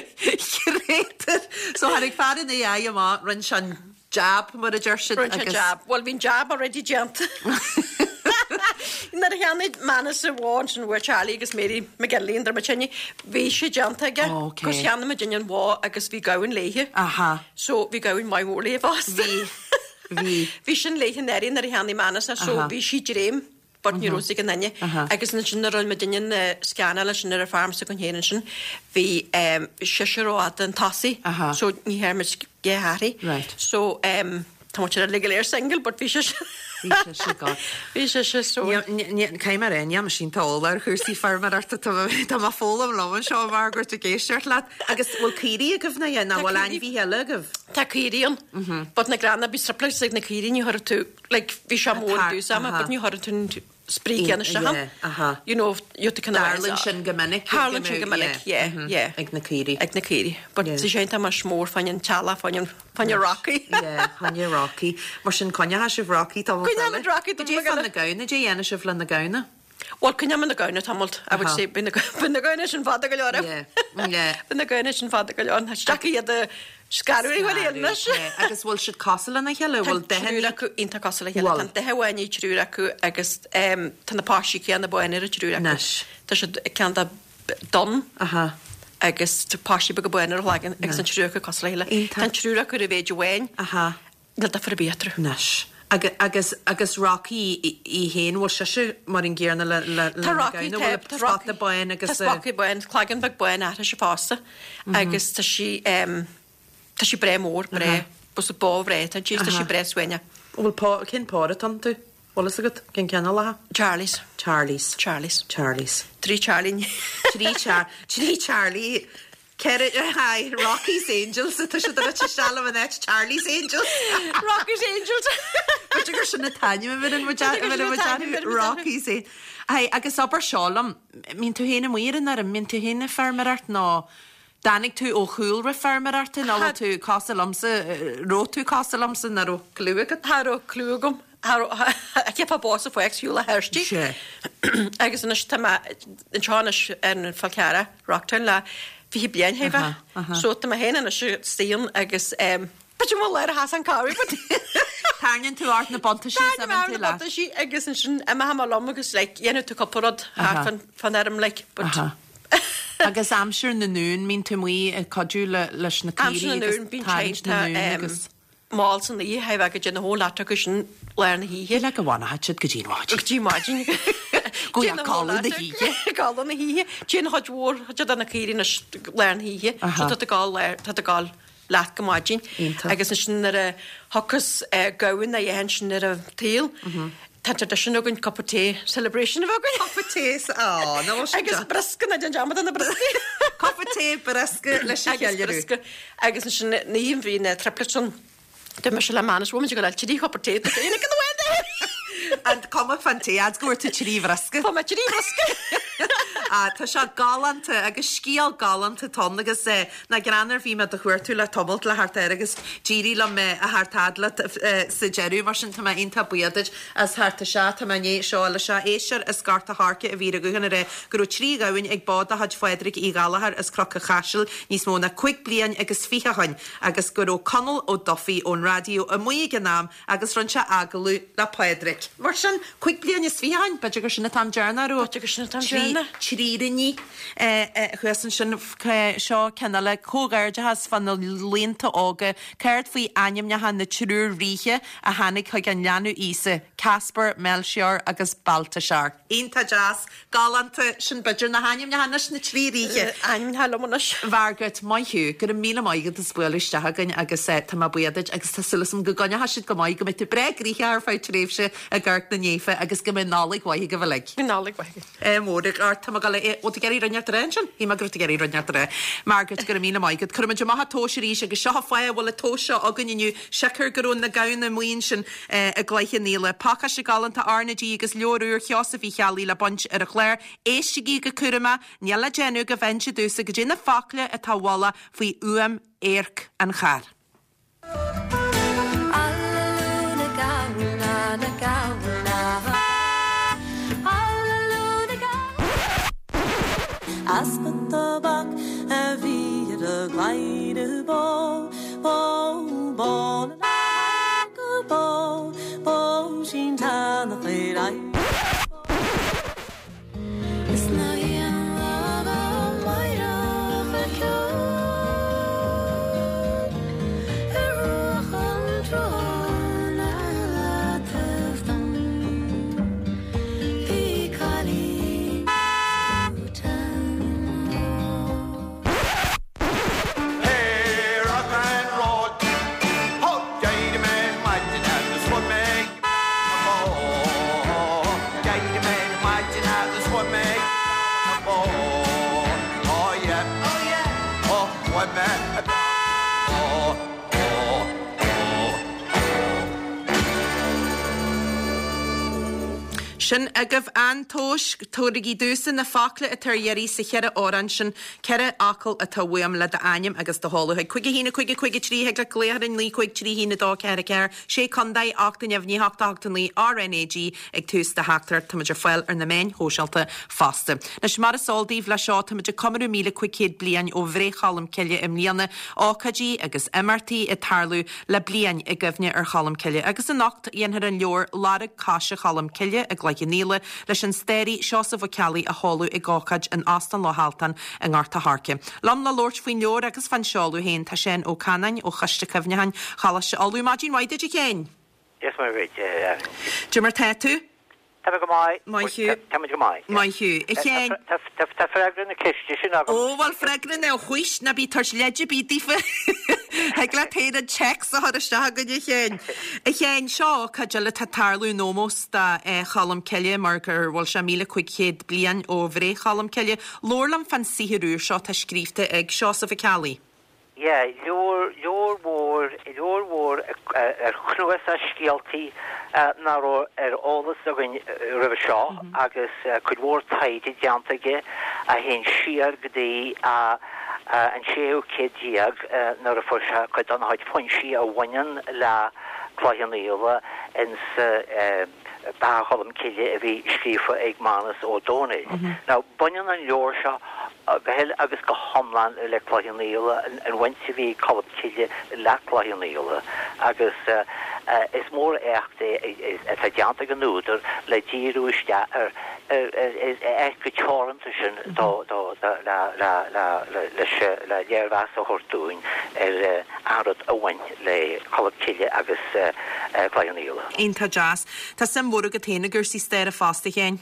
Creator. So tháinig fear an AI amach, rinne sé an jab, mar a deir siad. Rinne sé an jab. Bhuel, bhí an jab already déanta. Nuair a cheannaigh Manus an bhó ansin uaidh Charlie agus Mary McGinley i nDroim an tSinnigh, bhí sé déanta aige. Ó, ok. Cos cheannaigh muidinne an bhó agus bhí gamhain léithe. Aha. So bhí gamhain maith mhór léithe fosta. Bhí. Bhí. Bhí sin léithe anuraidh nuair a cheannaigh Manus í, so Aha. bhí sí dréim. but ní raibh fhios ag aon duine. Agus ansin nuair a rinne muidinne na scannáil ansin ar an farm s'againn féin ansin, bhí seisear rófhada chun tosaigh so ní thearn muid dhá hathraí. So tá muid uilig go léir single but bhí seisear. Bhí sise go. Bhí sise so. Caithfidh mé a rá, níl mise iontach eolach ar chúrsaí feirmeoireachta, tá mé ag foghlaim liom anseo, Margaret, ag éisteacht leat. Agus bhfuil caoirigh agaibh nó yeah, nó bhfuil ainmhithe eile agaibh? Tá caoirigh ann, but na gránna bhí surplus ag na caoirigh, ní chuirfeadh tú, like, bhí sé mór i dtús ama, but ní chuirfeadh tú an spraoi céanna isteach ann. You know, you have to kind of. Tarlaíonn sin go minic. Tarlaíonn sin go minic, yeah, yeah. Ag na caoirigh. Ag na caoirigh. But tá sé iontach mar mór fá choinne an teallach, fá choinne, fá choinne Rocky. Yeah, fá choinne Rocky. Mar sin coinneoidh sibh Rocky tamall eile. Coinneoidh Rocky tamall eile. Cad é fá na gamhna, cad é a dhéanfaidh sibh le na gamhna? Bhuel, coinneoidh na gamhna tamall, I would say, bíonn na gamhna sin fada go leor. Yeah, yeah. Bíonn na gamhna sin fada go leor. Tá sé iad a scaradh i bhfuil anois. Agus bhfuil siad cosúil lena chéile? Bhfuil Tá triúr acu iontach cosúil le chéile. Tá an dath amháin ag triúr acu agus tá na páistí céanna bána ar an triúr acu. Anois. Tá siad ceann de donn agus tá páistí beaga bána ar a gcloigeann agus an triúr acu cosúil le chéile. Iontach. Tá an triúr acu ar a mhéid amháin. Níl difear ar bith eatarthu. Anois. Agus, agus Rocky í féin, bhfuil sise mar an gcéanna le, le, le Tá Rocky, na gamhna, bhfuil tá spota bán agus Tá spota bán, cloigeann beag bán uirthise fosta agus tá sí, tá sí breá mór, breá, bus bó bhreá atá inti, tá sí breá suaimhneach. Bhfuil pó, cén pór atá iontu? Bhfuil fhios agat? Cén cineál acu? Charlies. Charlies. Charlies. Charlies. Trí Charlie. Trí Char, trí Charlie. Ceithre, hi, Rocky's Angels atá siad a rite isteach liom in áit Charlie's Angels. Rocky's Angels! B'fhéidir gur sin an t-ainm a bheireann muid a bheireann muid orthu, Rocky's Angels. Hi, agus abair seo liom, mbíonn tú féin amuigh ar an fheirm, mbíonn tú féin ag feirmeoireacht nó dtáinig tú ó chúlra feirmeoireachta nó bhfuil tú cosúil liomsa, raibh tú cosúil liomsa nach raibh cliú agat? Cha raibh cliú agam. Cheapfá bó sa pháirc shiúl a Thirsty. Sea. Agus anois tá mé anseo anois ar an Fál Carrach, Rocktown le 20 bliain chóir a bheith. Aha, aha. So tá mé féin anois istigh ann agus b'fhéidir mo léir a sheas an cabhair but Tarraingíonn tú ort na buntaisí is Tarraingím orm imíonn tú na leat. buntaisí agus ansin imeoidh mé liom agus like dhéanfaidh tú cúpla rud thart Aha. fán fán fheirm like but Aha. Agus aimsir na n-uan, mbíonn tú amuigh ag cuidiú le leis na Aimsir caoirigh na agus n-uan bíonn tarraingt sé na n-uan em agus. mall san oíche, chóir a bheith go dtí na whole lot acu sin lár na hoíche. Le go bhfanfaidh siad go dtí an mhaidin. Go dtí maidin. Go dtí codladh na hoíche. Codladh na hoíche. Téann chuid mhór, chuid de na caoirigh anois lár na hoíche. So tá tú ag gabháil lár, tá tú ag gabháil leat go maidin. Iontach. Agus ansin nuair a thiocfas gamhain a dhéanann sin ar an tsaol, tá an traidisiún againn cupa tae celebration a bheith againn. Cupa tae, á, nó sin Agus briosca, ná déan dearmad de na brioscaí. Cupa tae, briosca leis an Agus cheiliúradh. briosca. Agus ansin na oíche bhí na triplets ann. Dúirt mise le Manus, bhfuil muid ag dul trí chupa tae, tá féin ag an bhfuil An cuma fán tae, fhad go bhfuair tú trí bhriosca. Tá mé trí bhriosca. Ah, tá sé galánta agus scéal galánta atá ann agus eh, nach greannmhar bhí mé do chuartú le tamalt le theacht air agus d'éirigh liom eh, a theacht fhad leat eh, sa deireadh mar sin tá mé iontach buíoch duit as theacht isteach. Tá mé i ndiaidh seo eile seo éisteoir as Gort a' Choirce a bhí ar an ghuthán ag rá go raibh trí ghamhain ag bó de chuid Phádraig Uí Ghallchóir as Cnoc an Chaisil níos mó ná cúig bliain agus fiche ó shoin agus go raibh Conall Ó Dufaigh ón raidió amuigh ag an am agus rinne sé agallamh le Pádraig. Mar sin, cúig bliain is fiche ó shoin, b'fhéidir gur sin an t-am deireanach a raibh B'fhéidir gur sin an t-am deireanach. tríríní thuas ansin. Seo ceann eile, comhghairdeachas fá na laonta óga, céard faoi ainmneacha na triúr ríthe a tháinig chuig an leanbh Íosa, Caspar, Melchior agus Baltasar? Iontach deas. Galánta, sin b'fhéidir na hainmneacha anois, na trí ríthe. Ainmneacha liom anois. Mhargaret, maith thú, go raibh míle maith agat as bualadh isteach againn agus tá mé buíoch duit agus tá súil agam go gcoinneochaidh siad go maith, go mbeidh tú breá gnoitheach ar feadh tréimhse ag amharc na naofa agus go mbeidh Nollaig mhaith agaibh uilig. Nollaig mhaith agaibh. Ádh mór ort, tá mé ag dul a, bhfuil tú ag iarraidh rud inteacht a rá ansin? Shíl mé go raibh tú ag iarraidh rud inteacht a rá. Margaret, go raibh míle maith agat. Cuirfimid amach an tomhas arís agus seo an fáth a bhfuil an tomhas seo againn inniu, siocair go raibh na gamhna amuigh ansin i gCloich Cheann Fhaola. Pacáiste galánta RnaG agus leabhar úr Sheosaimh Uí Cheallaigh le baint ar an chlár. Éistigí go cúramach, níl le déanamh go bhfaigheann siad domhsa goidé na focla atá i bhfolach faoi fhuaim adharc an chairr. Easpa tobac a bhí ar a gcladhaire bó, bó, bó na go bó, bó sin teannach ar aghaidh. Is ná haon lá dá maireach a ceol ar bhruach an tsrutháin ar leataobh dom. Bhí cailín Hey, rock and roll. Oh, d'éirigh mé ar maidin agus fuair mé mo. Sin agaibh an tomhas. Tabhairigí domhsa na focla atá ar iarraidh sa cheithre amhrán sin. 4 fhocal atá uaim le d'ainm agus do sheoladh chuig 5 1 5 5 3 Thig leat glaoch orainn 9 5 3 1 2 4 4 6 Contae 8 neamhní 8 8 9 RnaG ag tús do theachtaireacht. Táimid ar fáil ar na meáin shóisialta fosta. Anois mar is eol daoibh, leis seo táimid ag comóradh 1,500 bliain ó bhreith Cholm Cille i mbliana, ócáidí agus imeachtaí ag tarlú le bliain i gcuimhne ar Cholm Cille. Agus anocht dhéanfar an leabhar Lorg Coise Cholm Cille i gCloich Cheann Fhaola leis an staraí Seosamh Ó Ceallaigh a sheoladh ag ócáid in Óstán Loch Altan i nGort a' Choirce. Liom le labhairt faoin leabhar agus fán seoladh féin tá Seán Ó Canáin ó Choiste Cuimhneacháin Choláiste Uladh. Maidin mhaith duit a Sheáin! Dia is Muire dhuit, a Erin. Cad é mar tá tú? Tá mé go maith. Maith thú. Tá muid go maith. Maith thú. A Sheáin. Tá freagra na ceiste sin agam. Ó, bhuel, freagra na, chuis, ná bí ag tabhairt leid ar bith daofa. Thig leat féin an téacs a chur isteach againn, a Sheáin. A Sheáin, seo ócáid eile atá ag tarlú in ómós do Cholm Cille mar gur bhfuil sé 1,500 bliain ó bhreith Cholm Cille. Labhair liom fán saothar úr seo atá scríobhta ag Seosamh Ó Ceallaigh. Yeah, leabhar, leabhar mhór, leabhar mhór ar chnuasach scéaltaí nach raibh ar eolas againn roimhe seo agus cuid mhór taighde déanta aige a théann siar go dtí an séú céad déag nuair a fuair sé cuid dá chuid foinsí a bhaineann le Cloich Cheann Fhaola ins Beatha Cholm Cille a bhí scríofa ag Mánus Ó Domhnaill. Now, baineann an leabhar seo go huile agus go hiomlán le Cloich Cheann Fhaola, an bhaint a bhí ag Colm Cille le Cloich Cheann Fhaola, agus is mór éacht é atá déanta ag an údar le díriú isteach ar ar chomh teoranta sin le léirmheas a thabhairt dúinn ar an rud a bhain le Colm Cille agus Cloich Cheann Fhaola. Iontach deas. Tá suim mhór agat féin i gcúrsaí staire fosta, a Sheáin.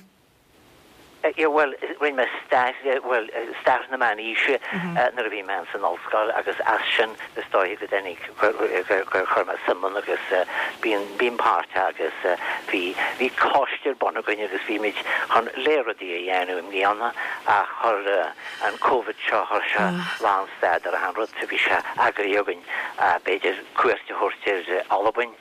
Yeah, bhuel, rinne mé stair, bhuel, stair na meánaoise nuair a bhí mé ins an ollscoil agus as sin is dóiche go dtáinig, gur chuir mé suim ann agus bím, bím páirteach agus bhí, bhí coiste ar bun againn agus bhí muid chun léaráidí a dhéanamh i mbliana ach chuir an Covid seo, chuir sé lánstad ar achan rud, bhí sé eagraithe againn b'fhéidir cuairt a thabhairt ar Albain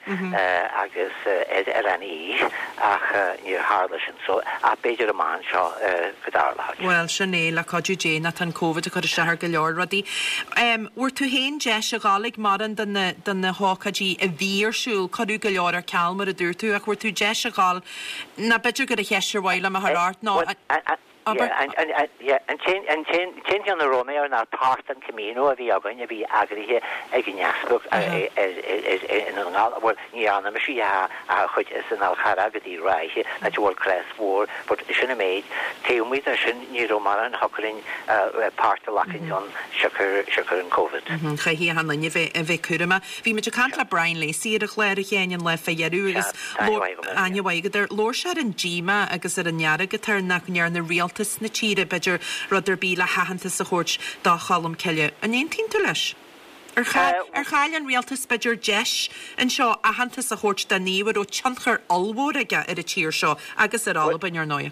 agus ar Oileán Í ach níor tharla sin so ach b'fhéidir amach anseo go dtarlóidh. Bhuel, sin é, le cuidiú Dé, nó tá an Covid ag cur isteach ar go leor rudaí. Bhfuair tú féin deis a dhul ag mórán de na, de na hócáidí a bhí ar siúl, cuireadh go leor ar ceal mar a dúirt tú, ach bhfuair tú deis a dhul, nó b'fhéidir gur an cheist ar mhaith liom a chur ort ná, Abair. An t-aon cheann a raibh mé air ná páirt den Camino a bhí againn a bhí eagraithe ag an easpag i nDún na nGall, bhuel ní dhearna mise í ach chuid as an Fhál Carrach go dtí Ráithe, áit a bhfuil crois mhór, but sin an méid. Taobh amuigh de sin ní raibh mórán a thiocfadh linn páirt a ghlacadh ann siocair siocair an Covid. Chaithfidh achan duine a bheith cúramach. Bhí muid ag caint le Brian Lacey ar an chlár a Sheáin an lá fé dheireadh agus aithne mhaith agat air. Labhair sé ar an díomá agus ar an fhearg atá air nach ndearna rialtas na tíre, b'fhéidir, rud ar bith le haitheantas a thabhairt do Cholm Cille. An aontaíonn tú leis? Ar ar chaill an rialtas, b'fhéidir, deis anseo aitheantas a thabhairt do naomh a raibh tionchar ollmhór aige ar an tír seo agus ar Albain, ar ndóigh?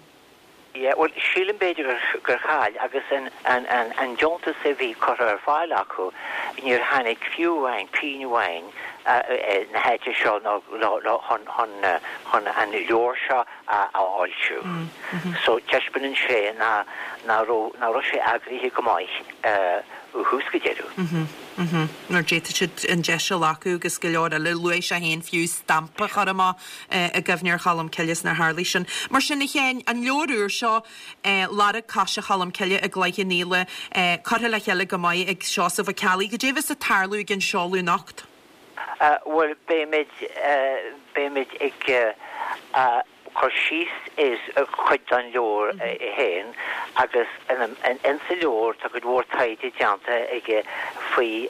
Yeah, bhuel, sílim b'fhéidir gur chaill agus an deontas a bhí curtha ar fáil acu, níor tháinig fiú amháin pingin amháin na háite seo nó chun an leabhar seo a fhoilsiú. So taispeánann sé nach raibh sé eagraithe go maith ó thús go deireadh. Mar d'fhéadfadh siad an deis a ghlacadh agus go leor eile. Luaigh sé féin fiú stampa a chur amach i gcuimhne ar Cholm Cille is nár tharlaigh sin. Mar sin, a Sheáin, an leabhar úr seo, Lorg Coise Cholm Cille i gCloich Cheann Fhaola, curtha le chéile go maith ag Seosamh Ó Ceallaigh. Goidé a bheas ag tarlú ag an seoladh anocht? Bhuel, beimid, beimid ag cur síos ar chuid den leabhar é féin agus insa leabhar tá cuid mhór taighde déanta aige faoi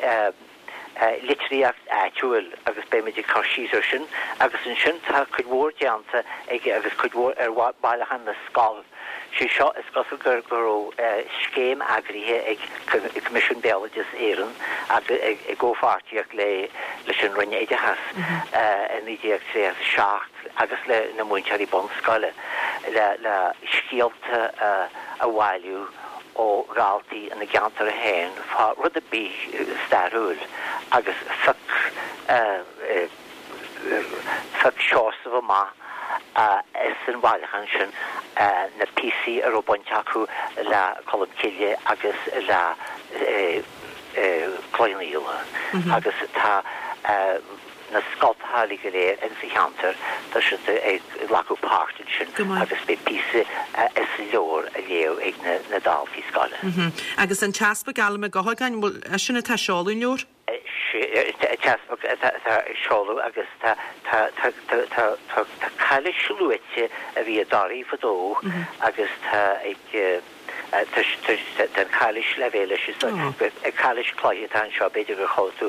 litríocht áitiúil agus beimid ag cur síos ar sin agus ansin tá cuid mhór déanta aige agus cuid mhór ar Bhailiúchán na Scol. Sé seo, is cosúil gur go raibh scéim eagraithe ag Coimisiún Béaloideas Éireann i gcomhpháirtíocht le leis an Roinn Oideachais i 1937 agus le na múinteoirí bunscoile le le scéalta a bhailiú ó dhaltaí ina gceantar féin fá rud ar bith stairiúil agus phioc phioc Seosamh amach. Ins an bhailiúchán sin na píosaí a raibh baint acu le Colm Cille agus le Cloich Cheann Fhaola agus tá na scoltacha uilig go léir insa cheantar, tá siad ag glacadh páirt ansin agus beidh píosa as an leabhar á léamh ag na daltaí scoile. Agus an tEaspag Alan Mac Eochagáin, bhfuil eisean atá ag seoladh an leabhair? An tEaspag atá ag seoladh agus tá cailís luaite a bhí i dToraigh fadó agus tá ag tá an chailís le bheith leis is cailís cloiche atá anseo b'fhéidir gur chuala tú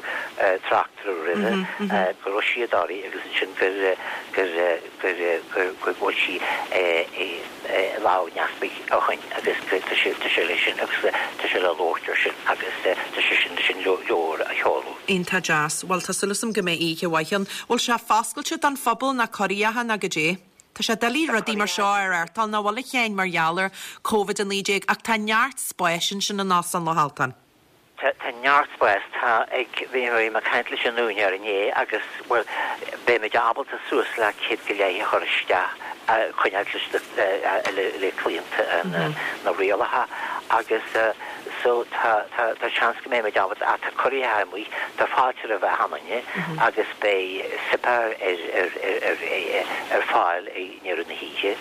trácht uirthi roimhe go raibh sí i dToraigh agus ansin gur gur gur gur go bhfuil sí i lámh an easpaig ó shoin agus tá sé tá sé leis sin agus tá sé le labhairt ar sin agus tá sé sin leis an leabhar a sheoladh. Iontach deas. Bhuel tá súil agam go mbeidh oíche mhaith ann. Bhfuil sé foscailte don phobal ná corraitheacha ná goidé? Tá sé doiligh rudaí mar seo a reáchtáil nach bhfuil a Sheáin mar gheall ar Covid-19 ach tá neart spáis ansin in Óstán Loch Altan. Tá neart spáis. Tá ag, bhí mé ag caint leis an úinéir inné agus, bhuel, beimid ábalta suas le 100 go leith a chur isteach, coinneáil leis le claonta na rialacha agus so tá, tá, tá seans go mbeimid ábalta, ach tá curaithe amuigh, tá fáilte roimh achan duine agus beidh suipéar ar, ar, ar, ar fáil i ndeireadh na hoíche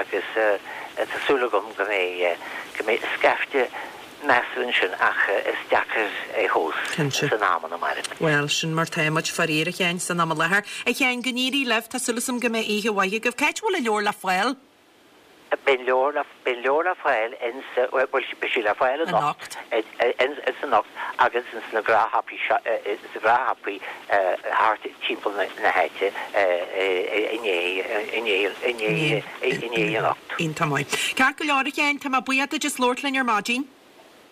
agus tá súil agam go mbeidh, go mbeidh scaifte measartha ansin ach is deacair é a thomhas san am ina mairimid. Bhuel, sin mar tá muid, faraor, a Sheáin, san am i láthair. A Sheáin, go n-éirí libh, tá súil agam go mbeidh oíche mhaith agaibh. Cá háit a bhfuil an leabhar le fáil? Beidh an leabhar le, beidh an leabhar le fáil ins, bhuel, beidh sé le fáil anocht, ins anocht agus ins na gnáthshiopaí seo, ins na gnáthshiopaí thart timpeall na háite inné, inné, inné. inné anocht. Iontach maith. Ceart go leor, a Sheáin, tá mé buíoch duit as labhairt linn ar maidin.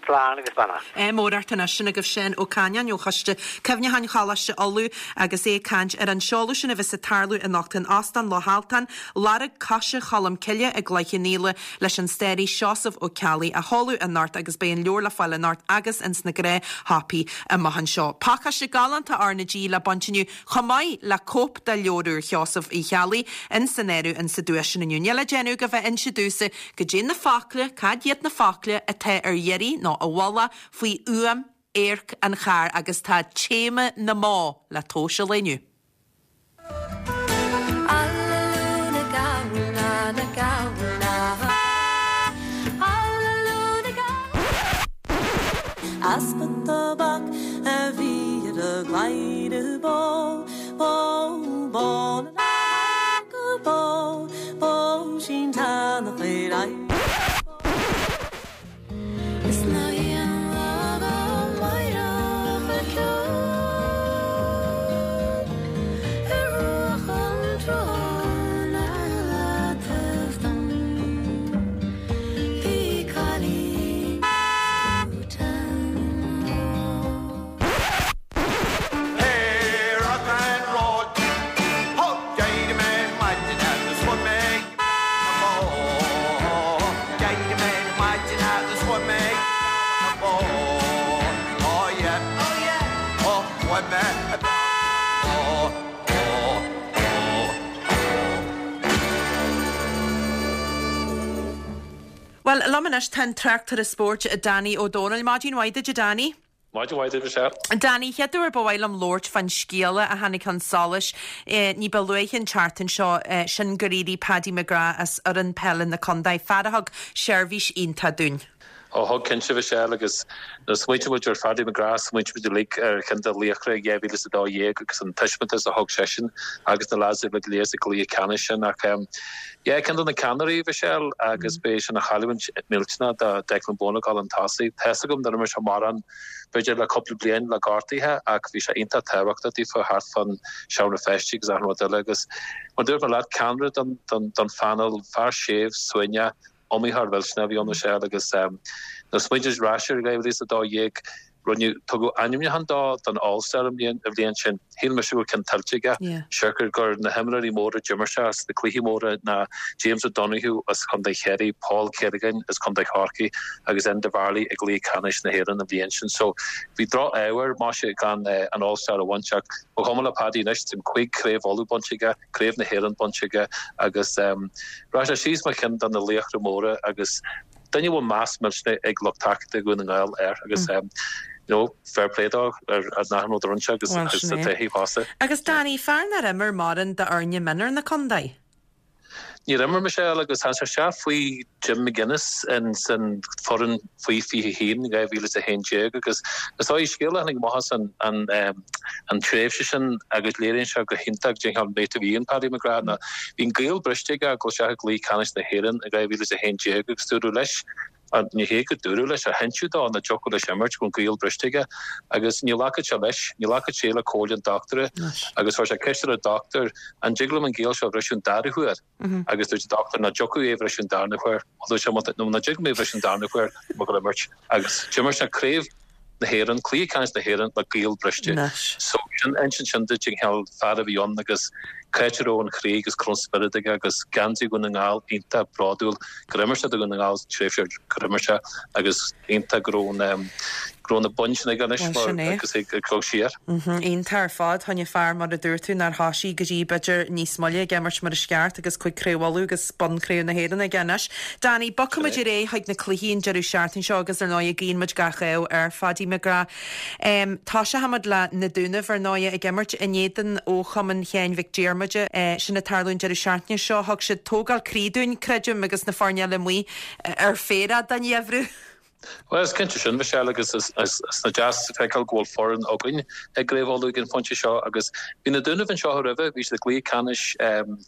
Slán agus beannacht. Ádh mór ort anois. Sin agaibh Seán Ó Caineáin ó Choiste Cuimhneacháin Choláiste Uladh agus é ag caint ar an seoladh sin a bheas ag tarlú anocht in Óstán Loch Altan, Lorg Coise Cholm Cille i gCloich Cheann Fhaola leis an staraí Seosamh Ó Ceallaigh á sheoladh anocht agus beidh an leabhar le fáil anocht agus ins na gnáthshiopaí amach anseo. Pacáiste galánta R na G le baint inniu chomh maith le cóip de leabhar úr Sheosaimh Uí Cheallaigh in san áireamh in sa duais sin inniu. Níl le déanamh ach bheith ag inse domhsa goidé na focla, cad iad na focla atá ar iarraidh nó i bhfolach faoi fhuaim adharc an chairr agus tá téama na mbó le tomhas an lae inniu. Easpa tobac a bhí ar a gcladhaire bó, bó, bó na go bó, bó sin teannach ar aghaidh. Is ná haon lá go máireach le ceol ar bhruach an tsrutháin ar leataobh dom. Bhí cailín Bhuel, liom anois tá an tráchtaire spóirt Danny Ó Dónaill. Maidin mhaith duit, a Danny. Maidin mhaith duit, Michelle. Danny, chéad uair ba mhaith liom labhairt fán scéala a tháinig chun solais ní ba luaithe an tseachtain seo, sin gur éirigh Paddy McGrath as fhoireann peile na contae, fear a thug seirbhís iontach dúinn. Ó thug cinnte, Michelle, agus nuair a smaointíonn muid ar Phaddy McGrath, smaointíonn muid uilig ar cheann de laochra 2012 agus an taispeántas a thug seisean agus na lads uilig go léir sa gcluiche ceannais sin. Ach yeah, ceann de na ceannairí, Michelle, agus beidh sin ina chailliúint millteanach do Declan Bonner ag dul chun tosaigh. Tá's agam nár imir sé mórán b'fhéidir le cúpla bliain le gortuithe ach bhí sé iontach tábhachtach daofa thart fán seomra feistis agus achan rud eile agus mar dúirt mé leat, ceannaire don don phainéal, fear séimh, suaimhneach, iomaitheoir millteanach a bhí ann Michelle agus nuair a smaointíonn muid ar ais ar 2012. Rinneadh, tugadh ainmniúchán dó don All Star an bhliain, an bhliain sin. Shíl mise go raibh ceann tuillte aige. Siocair gur na himreoirí móra d'imir sé sna cluichí móra ná James O'Donoghue as Contae Chiarraí, Paul Kerrigan as Contae Chorcaí agus Enda Varley i gcluiche ceannais na hÉireann an bhliain sin. So bhí droch-ádh air, maise, gan an All Star a bhaint ach ba chuma le Paddy anois, tá cuig Craobh Uladh bainte aige, Craobh na hÉireann bainte aige agus rachaidh sé síos mar cheann de na laochra móra agus duine a bhfuil meas millteanach ag lucht tacaíochta Dhún na nGall air agus you know fair play dó ar an achan rud a rinne sé agus Bhuel, agus sin é. tá taobh fosta. Agus Danny, fear nár imir mórán d'fhoirne mionúir na contae? Níor imir Michelle agus tháinig sé isteach faoi Jim McGuinness in san foireann faoi 21 in 2011 agus is dóigh scéal a tháinig amach as an an an tréimhse sin agus léiríonn sé go hiontach cén cineál mate a bhí in Paddy McGrath ná bhí an gaol briste aige ag dul isteach i gcluiche ceannais na hÉireann in 2011 agus dúradh leis Ní hé go dúradh leis, ach hinseadh dó nach dtiocfadh leis imirt, go raibh an gaol briste aige agus ní ghlacfadh sé leis, ní ghlacfadh sé le comhairle an dochtúra agus chuir sé ceist ar an dochtúir, an dtig liom an gaol seo a bhriseadh an dara huair? Agus dúirt an dochtúir nach dtiocfadh é a bhriseadh an darna huair. Dúirt sé, nó nach dtig liom é a bhriseadh an darna huair, tá mé ag dul a imirt. Agus d'imir sé craobh na hÉireann, cluiche ceannais na hÉireann le gaol briste. So sin, insíonn sin duit an cineál fear a bhí ann agus cá háit a raibh an chroí agus cá raibh an spiorad aige agus geansaí Dhún na nGall iontach bródúil gur imir sé do Dhún na nGall sa tréimhse gur imir sé agus iontach go raibh an, go raibh na boinn sin aige anois Bhuel, sin mar é. agus é ag dul siar. Iontach ar fad. Choinne fear, mar a dúirt tú, nár thoisigh go dtí b'fhéidir níos moille ag imirt mar is ceart agus cuig Craobh Uladh agus bonn Craobh na hÉireann aige anois. Danny, bogfaidh muid ar aghaidh chuig na cluichí an deireadh seachtaine seo agus ar ndóigh guíonn muid gach ádh ar Phaddy McGrath. Toiseochaimid le Na Dúnaibh ar ndóigh ag imirt in éadan ó Chumann Sheáin Mhic Diarmada. Sin ag tarlú an deireadh seachtaine seo. Thug siad tógáil croí dúinn, creidim, agus na foirne eile amuigh ar féarach don gheimhreadh. Bhuel, is cinnte sin, Michelle, agus is deas a feiceáil go bhfuil foireann againn i gCraobh Uladh ag an phointe seo agus bhí na Dúnaibh anseo roimhe, bhí siad i gcluiche ceannais,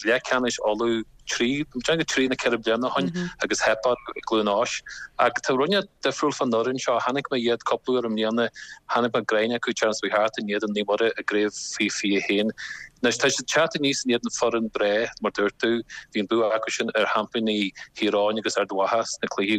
leathcheannais Uladh trí, déarfainn trí nó ceithre bliana ó shin agus theip orthu i gCluain Eois. Ach tá rud inteacht difriúil fán fhoireann seo, chonaic mé iad cúpla uair i mbliana, chonaic mé greim acu an tseachtain seo thart in éadan Naomh Muire i gcraobh faoi 21. Anois tá siad ag teacht aníos in éadan foireann breá, mar dúirt tú, bhí an bua acu sin ar sheaimpíní Thír Eoghain agus Ard Mhacha sna cluichí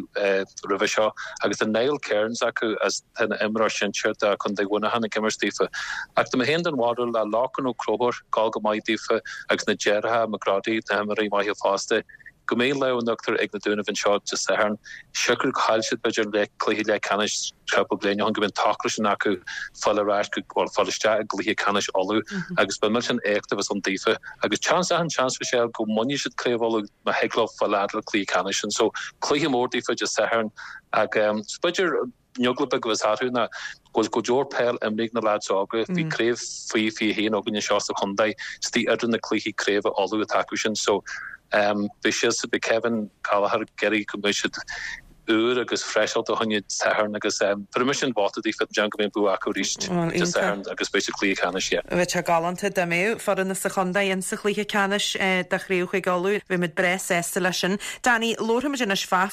roimhe seo agus tá Niall Kearns acu as ina imreoir sinsir do Chontae Mhuineacháin ag imirt daofa. Ach tá mé féin den bharúil le Lorcan Ó Conchúir ag gabháil go maith daofa agus na deartháireacha McGroddy, na himreoirí maithe fosta, go mbeidh lámh in uachtar ag na Dúnaibh anseo Dé Sathairn. Siocair gur chaill siad b'fhéidir an cluiche leathcheannais cúpla bliain ó shin go mbeidh an t-ocras sin acu fáil ar ais go, bhuel, fáil isteach i gcluiche ceannais Uladh agus ba milltean éacht a bheas ann daofa agus seans, achan seans Michelle go mbainfidh siad Craobh Uladh má thig leo fáil fhad le cluiche ceannais sin. So cluiche mór daofa Dé Sathairn ach b'fhéidir an eagla beag a bheas orthu ná go bhfuil go leor peil imrithe ag na leaids óga. Bhí craobh faoi 21 againn anseo sa chontae istigh idir na cluichí craoibhe Uladh atá acu sin. So beidh siadsan, beidh Kevin Gallagher ag iarraidh go mbeidh siad úr agus freiseáilte fá choinne Dé Sathairn agus bheir mise an vóta daofa déarfainn go mbeidh an bua acu arís Dé Sathairn agus beidh siad cluiche ceannais yeah. Bheadh sé galánta dá mbeadh foireann as an chontae in sa chluiche ceannais de chraobh Chúige Uladh. Bheadh muid breá sásta leis sin. Danny, labharfaimid anois fá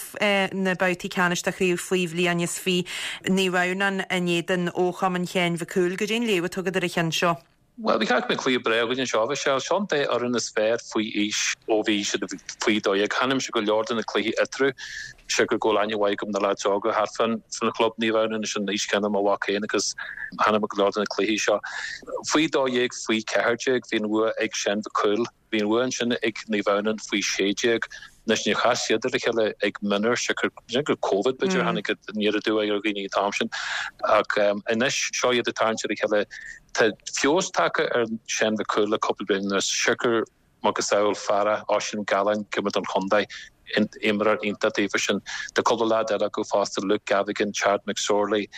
na babhtaí ceannais de chraobh faoi bhliain is fi. Naomh Adhamhnáin in éadan ó Chumann Sheáin Mhic Cumhaill. Goidé an léamh atá agat ar an cheann seo? Bhuel, ba cheart go mbeadh cluiche breá againn anseo, Michelle. Seo an dá fhoireann is fearr faoi aois ó bhí siad faoi 12. Chonaic mise go leor de na cluichí eatarthu, siocair go bhfuil aithne mhaith agam na leaids óga thart fán chlub Naomh Adhamhnáin anois an aois chéanna mo mhac féin agus chonaic mé go leor de na cluichí seo. Faoi 12, faoi 14, bhí an bhua ag Seán Mhic Cumhaill. Bhí an bhua ansin ag Naomh Adhamhnáin faoi 16. Anois níor chas siad ar a chéile ag mionúir, siocair gur Covid b'fhéidir a tháinig aniar aduaidh ar dhaoine an t-am sin. Ach anois seo iad ag tarraingt ar a chéile. Tá feabhas tagtha ar Seán Mhic Cumhaill le cúpla bliain anuas, siocair macasamhail fear Oisín Gallen ag imirt don chontae, imreoir iontach daofa sin. Tá cúpla leaid eile acu fosta, Luke Gavigan, Chad McSorley,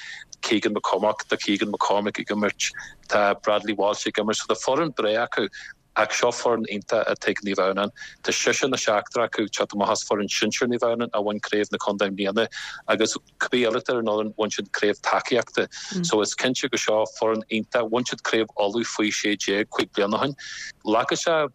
Keegan McCormack, tá Keegan McCormack ag imirt, tá Bradley Walsh ag imirt. So tá foireann breá acu. Ach seo foireann iontach atá ag Naomh Adhamhnáin. Tá seisear nó seachtar acu ag teacht amach as foireann sinsir Naomh Adhamhnáin a bhain craobh na contae i mbliana agus cibé eile atá ar an fhoireann, bhain siad craobh tacaíochta. So is cinnte go seo foireann iontach. Bhain siad craobh Uladh faoi 16 cuig bliana ó shin. Glacfaidh sé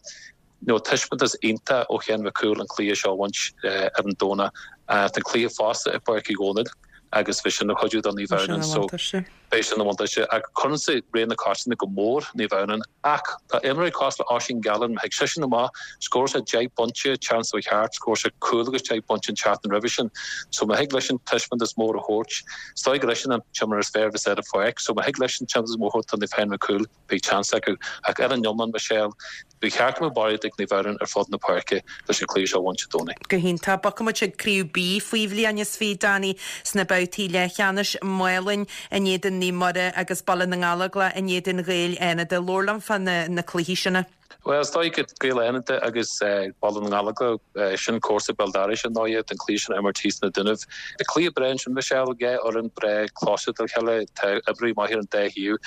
you know taispeántas iontach ó Sheán Mhic Cumhaill an cluiche seo a bhaint ar an Domhnach. Tá an cluiche fosta i bPáirc Uí Dhónaill agus bheadh sin ina chuidiú do Naomh Adhamhnáin. So. Beidh sin ina bhuntáiste ach cuireannsa ré na cosanta go mór Naomh Adhamhnáin ach tá imreoirí cosúil le Oisín Gallen, má thig seisean amach, scóráil sé 10 bpointe an tseachtain seo thart, scóráil sé cúl agus 10 bpointe an tseachtain roimhe sin. So má thig leisean taispeántas mór a thabhairt, is dóigh gur eisean an t-imreoir is fearr a bheas ar an pháirc, so má thig leisean taispeántas mór a thabhairt do Naomh Sheáin Mac Cumhaill, beidh seans acu. Ach ar an iomlán, Michelle, ba cheart go mbeadh barraíocht ag Naomh Adhamhnáin ar fud na páirce leis an cluiche seo a bhaint Dé Domhnaigh. Go hiontach. Bogfaidh muid chuig Craobh B faoi bhliain is 20, Danny, sna babhtaí leathcheannais, Maolainn in éadan Naomh Muire agus Baile na nGallóglach in éadan Ghaeil Fhánada. Labhair liom fá na cluichí sin. Bhuel, is dóigh go Gaeil Fhánada agus Baile na nGallóglach, sin comharsa béal dorais ar ndóighe, don chluiche sin a imirt thíos sna Dúnaibh. Cluiche breá ansin, Michelle, dhá fhoireann breá cloiste dá chéile, tá imreoirí maithe ar an dá thaobh.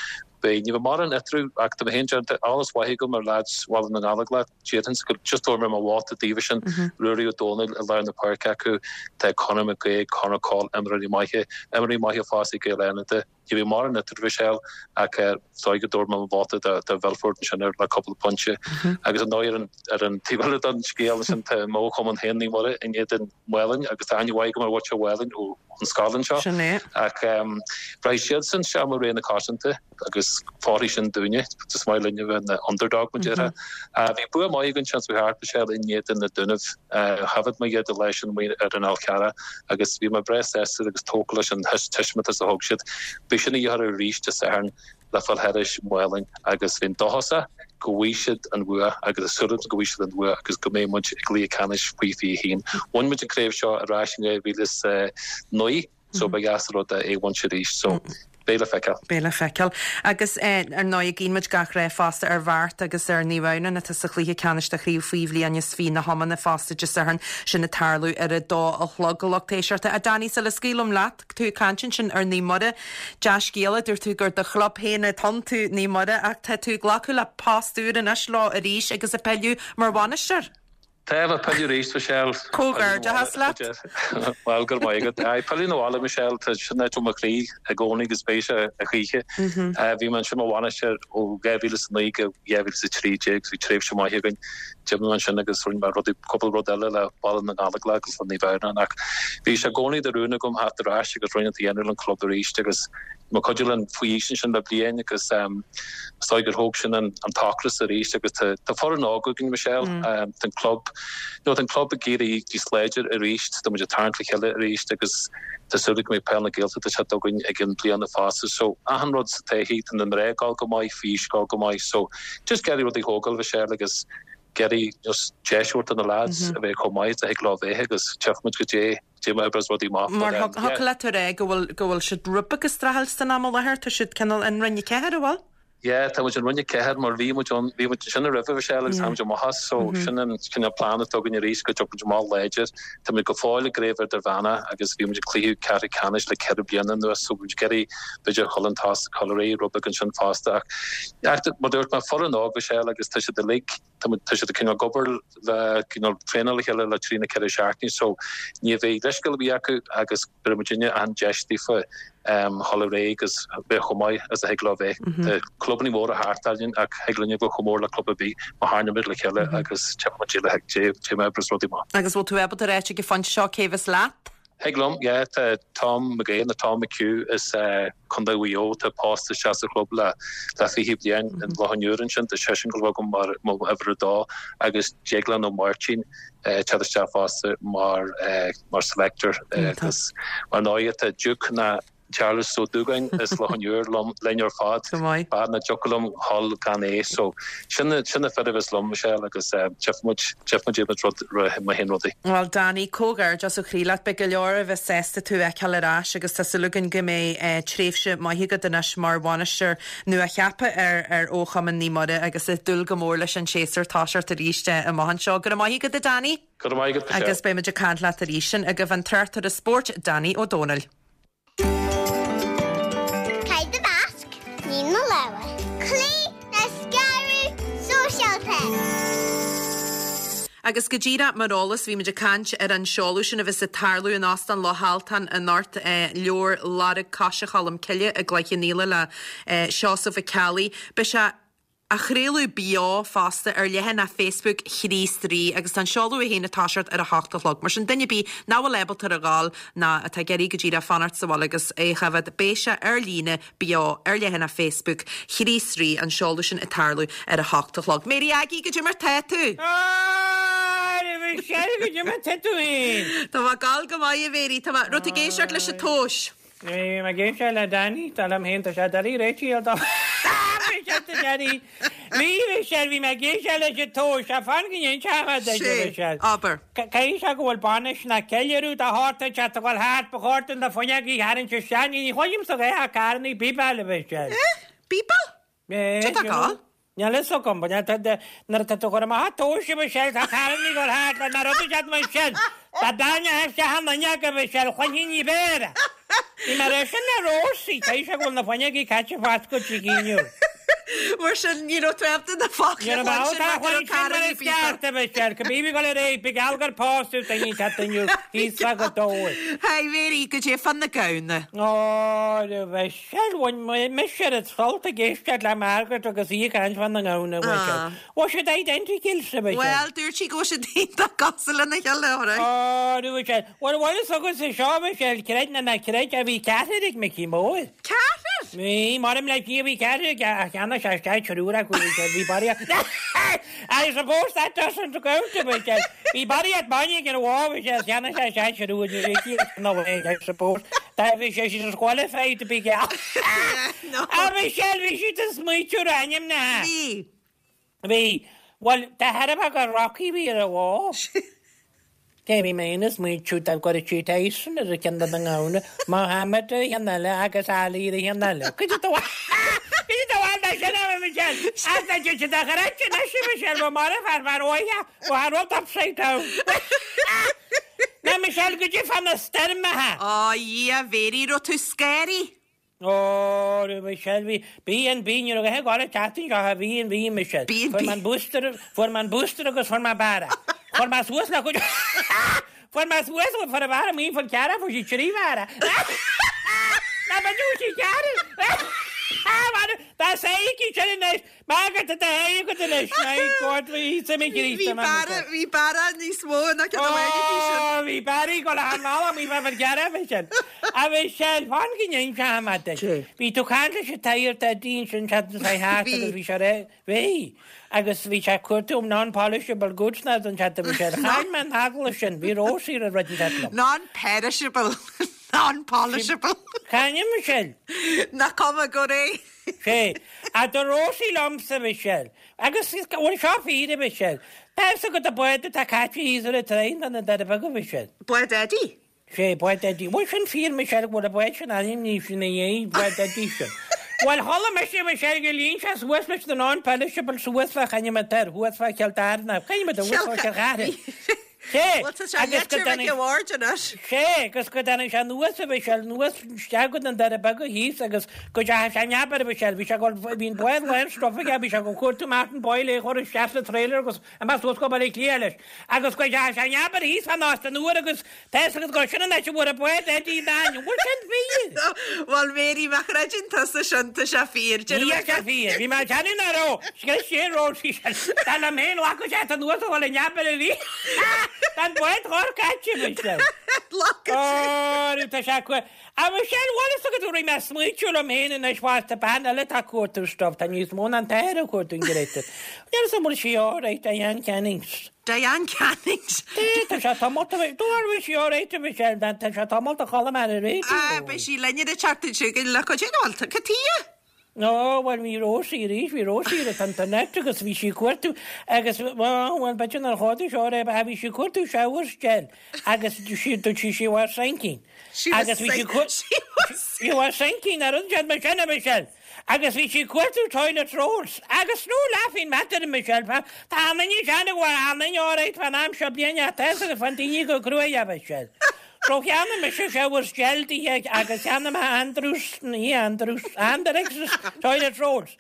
Beidh, ní bheidh mórán eatarthu ach tá mé féin déanta, eolas mhaith agam ar leaids Bhaile na nGallóglach, déarfainnse go just tabharfaidh mé mo vóta daofa sin, Ruairí Ó Dónaill i lár na páirce acu, tá Conor McGuigue, Conor Coll, imreoirí maithe, imreoirí maithe fosta ag Gaeil Fhánada. Ní bheidh mórán eatarthu Michelle ach is dóigh go dtabharfaidh mé mo vóta do Mhilford ansin ar le cúpla pointe. Agus ar ndóigh ar an ar an taobh eile den scéal ansin tá mo chumann féin Naomh Muire in éadan Mhaolainn agus tá aithne mhaith agam ar mhuintir Mhaolainn ó an scoil anseo. Sin é. Ach rachaidh siadsan isteach mar ré na cosanta agus fóirfidh sin dúinne. Is maith linne a bheith ina underdog mar déarfá. Bhí bua maith againn seans thart Michelle in éadan na Dúnaibh. Thaifead mé iad an lá sin amuigh ar an Fhál Carrach agus bhí mé breá sásta agus tógtha leis an taispeántas a thug siad. Beidh sin a dhíth orthu arís Dé Sathairn le fáil thairis Maolainn agus bheinn dóchasach go bhfaighidh siad an bhua agus tá súil agam go bhfaighidh siad an bhua agus go mbeidh muid i gcluiche ceannais faoi 21. Bhain muid an craobh seo ar ais in 2009 so ba dheas an rud é a bhaint arís so beidh le feiceáil. Beidh le feiceáil. Agus ar ndóigh guíonn muid gach rath fosta ar Bheart agus ar Naomh Adhamhnáin atá sa chluiche ceannais de chraobh faoi bhliain is 20 na hiomána fosta Dé Sathairn sin ag tarlú ar a dó a chlog. A lucht éisteachta. A Danny sula scaoilim leat, tú ag caint ansin ar Naomh Muire. Dea-scéala, dúirt tú gur do chlub féin atá iontu, Naomh Muire, ach tá tú ag glacadh le post úr anois leo arís agus ag pilleadh mar bhainisteoir. Tá, ag pilleadh arís, Michelle. Comhghairdeachas leat. Bhuel, go raibh maith agat. Aye, pilleadh na bhaile, Michelle, tá sin áit i mo chroí i gcónaí agus beidh sé a choíche. Bhí mé ansin mar bhainisteoir ó 2009 go 2013, bhí tréimhse maith againn. D'imigh mé ansin agus rinne mé rudaí, cúpla rud eile le Baile na nGallóglach agus le Naomh Adhamhnáin ach bhí sé i gcónaí de rún agam theacht ar ais agus ruainne a dhéanamh le an club arís agus bhí mé ag cuidiú linn faoi aois ansin le bliain agus is dóigh gur thóg sin an t-ocras arís agus tá tá foireann óg againn Michelle, tá an club, you know tá an club ag éirí níos láidir arís, tá muid ag tarraingt le chéile arís agus tá súil agam go mbeidh peil na Gaeltachta teacht againn ag an bliana fosta so achan rud sa taithí, tá na mná ag gabháil go maith, faoi aois ag gabháil go maith so Just ag iarraidh rudaí a thógáil Michelle agus ag iarraidh just deis a thabhairt do na lads a bheith chomh maith is a thig leo bheith agus tchífidh muid goidé goidé mar a oibreos rudaí amach Mar but um yeah. thiocfadh leat a rá go bhfuil go bhfuil siad rud beag ag streachailt san am i láthair, tá siad cineál in Roinn 4, an bhfuil? Yeah, tá muid in Roinn 4 mar bhí muid ann, bhí muid ansin roimhe Michelle agus tháinig muid amach as so sin an cineál plean atá againn arís go dtiocfaidh muid amach láidir. Tá muid go fóill i gcraobh idirmheánach agus bhí muid ag cluiche ceathrú ceannais le ceithre bliana anuas so bhí muid ag iarraidh b'fhéidir dhul an tost ag dul ar aghaidh rud beag ansin fosta ach ach mar dúirt mé foireann óg Michelle agus tá siad uilig tá muid tá siad ag cineál ag obair le cineál traenáil le chéile le trí nó ceithre seachtainí so ní bheidh leithscéal ar bith acu agus bhéarfaidh muidinne an deis daofa um dhul ar aghaidh agus bheith chomh maith is a thig leo bheith. Tá clubanna móra thart orainn ach thig linn a bheith chomh mór le club ar bith má tharraingíonn muid le chéile agus tchífidh muid le goidé mar a oibreos rudaí amach. Agus bhfuil tú ábalta a ráit ag an phointe seo cé bheas leat? Thig liom, yeah. Tá Tom McGahan nó Tom McHugh as Contae Mhaigh Eo atá pósta isteach sa chlub le le 20 bliain in Loch an Iúir ansin. Tá seisean ag gabháil a bheith agam mar mo uimhir a dó agus Déaglán Ó Máirtín ag teacht isteach fosta mar mar selector agus mar ndóigh tá Duke na Charles Ó Dúgáin as Loch an Iúir liom linn ar fad. Go maith. B'fhearr nach dtiocfadh liom dhul gan é. So sin na sin na fir a bheas liom, Michelle, agus tchífidh muid tchífidh muid muid rud mar a théann rudaí. Bhuel Danny, comhghairdeas ó chroí leat. Beidh go leor a bheas sásta tú a fheiceáil ar ais agus tá súil againn go mbeidh tréimhse maith agat anois mar bhainisteoir nua-cheaptha ar ar Fhochumann Naomh Muire agus ag dúil go mór leis an séasúr toiseacht arís amach anseo. Go raibh maith agat a Danny! Go raibh maith agat, Michelle. Agus beidh muid ag caint leat arís. Sin agaibh an tráchtaire spóirt, Danny Ó Dónaill. Caith do mhasc, nigh do lámha. Cloígh le scaradh sóisialta. Agus go díreach mar eolas, bhí muid ag caint ar an seoladh sin a bheas ag tarlú in Óstán Loch Altan anocht, leabhar Lorg Coise Cholm Cille i gCloich Cheann Fhaola le Seosamh Ó Ceallaigh. Beidh sé. Á chraoladh beo fosta ar leathanach Facebook Chríost Rí agus tá an seoladh é féin ag toiseacht ar a hocht a chlog. Mar sin, duine ar bith nach bhfuil ábalta ar a ghabháil ná atá ag iarraidh go díreach fanacht sa bhaile agus é a choimhéad, beidh sé ar líne beo ar leathanach Facebook Chríost Rí, an seoladh sin ag tarlú ar a hocht a chlog. Mary Aggie, goidé mar tá tú? A Mhichelle, goidé mar tá tú féin? Tá mé ag gabháil go maith, a Mhary. Tá mé, raibh tú ag éisteacht leis an tomhais? Bhí mé ag éisteacht le Danny, dar liom féin, tá sé doiligh réitigh ar do Danny. Bhí, Michelle, bhí mé ag éisteacht leis an tomhais, ach fan go n-inseoidh mé duit, a Mhichelle. Abair. Caithfidh sé go bhfuil bainis ná ceiliúradh de shórt ag teacht a dhul thart, ba chóir dúinn na fuinneogaí a tharraingt isteach, ní chloisimse a dhath ach carrannaí bíbeáil, a Mhichelle. Eh? Bíbeáil? Eh, Cad tá ag gabháil? Níl fhios agam, but nuair atá tú ag cur amach an tomhais, a Mhichelle, tá carrannaí ag dul thart le na rudaí iad mar sin. Dá dtarraingeofá isteach an fhuinneog, a Mhichelle, chluinfinn ní b'fhearr. Bhí mé ag rá sin le Rósaí, caithfidh sé go bhfuil na fuinneogaí caite foscailte aici inniu. Mar sin, ní raibh tú ábalta na focla a chluinstin mar go raibh carrannaí Ní raibh mé ábalta a chluinstin mar is ceart, a Mhichelle, cibé bhí ag dul ar aghaidh, ba gheall gur pósadh duine inteacht inniu, thíos fá Ghaoth Dobhair. Hi Mary, goidé fá na gamhna. Ó, a Mhichelle. Bhuel, bhain mise oiread sult ag éisteacht le Margaret agus í ag caint fá na ngamhna, a Mhichelle. Bhfuil siad identical, a Mhichelle? Bhuel, dúirt sí go bhfuil siad iontach cosúil lena chéile, alright. Ó, a Mhichelle. Bhuel, bhfuil fhios agatsa seo, a Mhichelle, creid nó ná creid, bhí ceathrar ag Micí Mór. Ceathrar? Bhí, maram le Dia, bhí ceathrar aige, ach cheannaigh sé isteach triúr acu, a Mhichelle, bhí barraíocht. I suppose that doesn't count, a Mhichelle. Bhí barraíocht bainne ag an bhó, a Mhichelle, cheannaigh sé isteach triúr, ní raibh sí ina bhfuil, I suppose. Dá bhí sé disqualified to be geall. A Mhichelle, bhí siad ag smaoitiú ar ainmneacha. Bhí. Bhí. Bhuel, de thairbhe gur Rocky a bhí ar an bhó. Cé bhí mé ina smaoitiú dá gcuirfeadh sí Tyson ar an cheann de na ngamhna, Mohammed ar an cheann eile agus Ali ar an cheann eile. Cuid de do Cuid de do bhal sin, a Mhichelle. Ach tá siad a chreid anois, a Mhichelle, bhí marbh fear fear óige, bhí an rud upside down. Ná Michelle, goidé fá na stoirmeacha. Ó, a Dhia, Mhéirí, raibh tú scanraithe? Ó, a Mhichelle, bhí, B and B, ní raibh a dhath ag gabháil an tseachtain seo, B and B, Michelle. B and B. Fuair mé an booster, fuair mé an booster agus fuair mé bearradh. Fuair mé suas le cuid, fuair mé suas, fuair an bhearradh maoin fán cearra, fuair sí trí bhearradh. Ná ba dúis í cearra. Tá sé aici sin anois, Margaret, tá sé agat anois, my God, bhí suim ag Bhí bearradh, bhí bearradh níos mó ná ceann amháin aici sin. Ó, bhí bearradh ag dul thar an bhealach, bhí fear gearradh fé sin. A Mhichelle, fan go n-inseoidh mé duit. Bhí tú ag caint leis an tSagart Eddie ansin seachtain seo thart agus bhí sé ré, bhí, agus bhí sé ag cuartú non-polishable goods ná don seachtain Mhichelle. Chaill mé an t-agallamh sin, bhí Rósaí ar an rud an seachtain liom. Non-perishable, non-polishable. Cá ainm Michelle? Nach cuma go réidh. Sé. A dúirt Rósaí liomsa, Michelle. Agus bhfuil seo fíor, a Mhichelle? Tá fhios agat an bád atá caite thíos ar an traein do na Doirí Beaga, Michelle. Bád Eddie? Sé, bád Eddie. Bhfuil sin fíor, Michelle, go bhfuil an bád sin ainmnithe ina dhiaidh, bád Eddie sin? Bhuel, chuala mise, Michelle, gur líon sé suas leis na non-perishable suas fá choinne an toir, thuas fá Chill Dara, choinne an thuas fá Chill Chartha. Sé, Bhuel, tá sé agus go leitir dtáinig. Mhic a' Bhaird anois. Sé, agus go dtáinig sé anuas, a Mhichelle, anuas isteach go na Doirí Beaga thíos agus go dteachaigh sé in abar, a Mhichelle, bhí sé ag dul, bhí an bád lán stuif aige, bhí sé ag dul cuartú Martin Boyle é a chur isteach sa trailer agus amach suas go Baile Átha Cliath leis. Agus go dteachaigh sé in abar thíos fán Óstán Úr agus tá fhios agat gur sin an áit a bhfuair an bád Eddie an ainm. Bhfuil sin fíor? Bhuel, Mary, má chreideann tusa sin, tá sé fíor. Ní sé fíor. Bhí mé ag déanamh nach raibh. Scrios sé ról sí sin. Dar liom féin, ghlacadh sé anuas a dhul in abar arís. Tá an bád chóir caite, Michelle. Ghlacadh sé. Ó, tá sé cu. A Michelle, bhfuil fhios agat go raibh mé ag smaoitiú liom féin anois fosta, bean eile atá ag cuartú stuff, tá níos mó ná an t-athair ag cuartú an Greta. Níl fhios agam bhfuil sí alright, Diane Cannings. Diane Cannings. Tá sé tamall a bheith, do bhí sí alright a Michelle, tá sé tamall a chuala mé ar an raidió. Ah, beidh sí linn ar an tseachtain seo chugainn le cuid den bhfuil cad tuighe? Ó, bhuel, bhí Rósaí arís, bhí Rósaí ar an internet agus bhí sí ag cuartú agus, bhuel, b'fhéidir nár chuartaigh seo é, ach bhí sí ag cuartú shower gel agus sí, dúirt sí she was sinking. She was Agus bhí sí sink, she was She was sinking, ar an mar sin a Michelle. Agus bhí sí ag cuartú toilet rolls. Agus no laughing matter, Michelle, tá an duine sean ag an duine alright fán am seo bliana ach tá fhios agat fán daoine go cruaidh, a Michelle. So cheannaigh mise shower gel di agus cheannaigh mé Andrews, ní Andrews, Andrex's toilet rolls.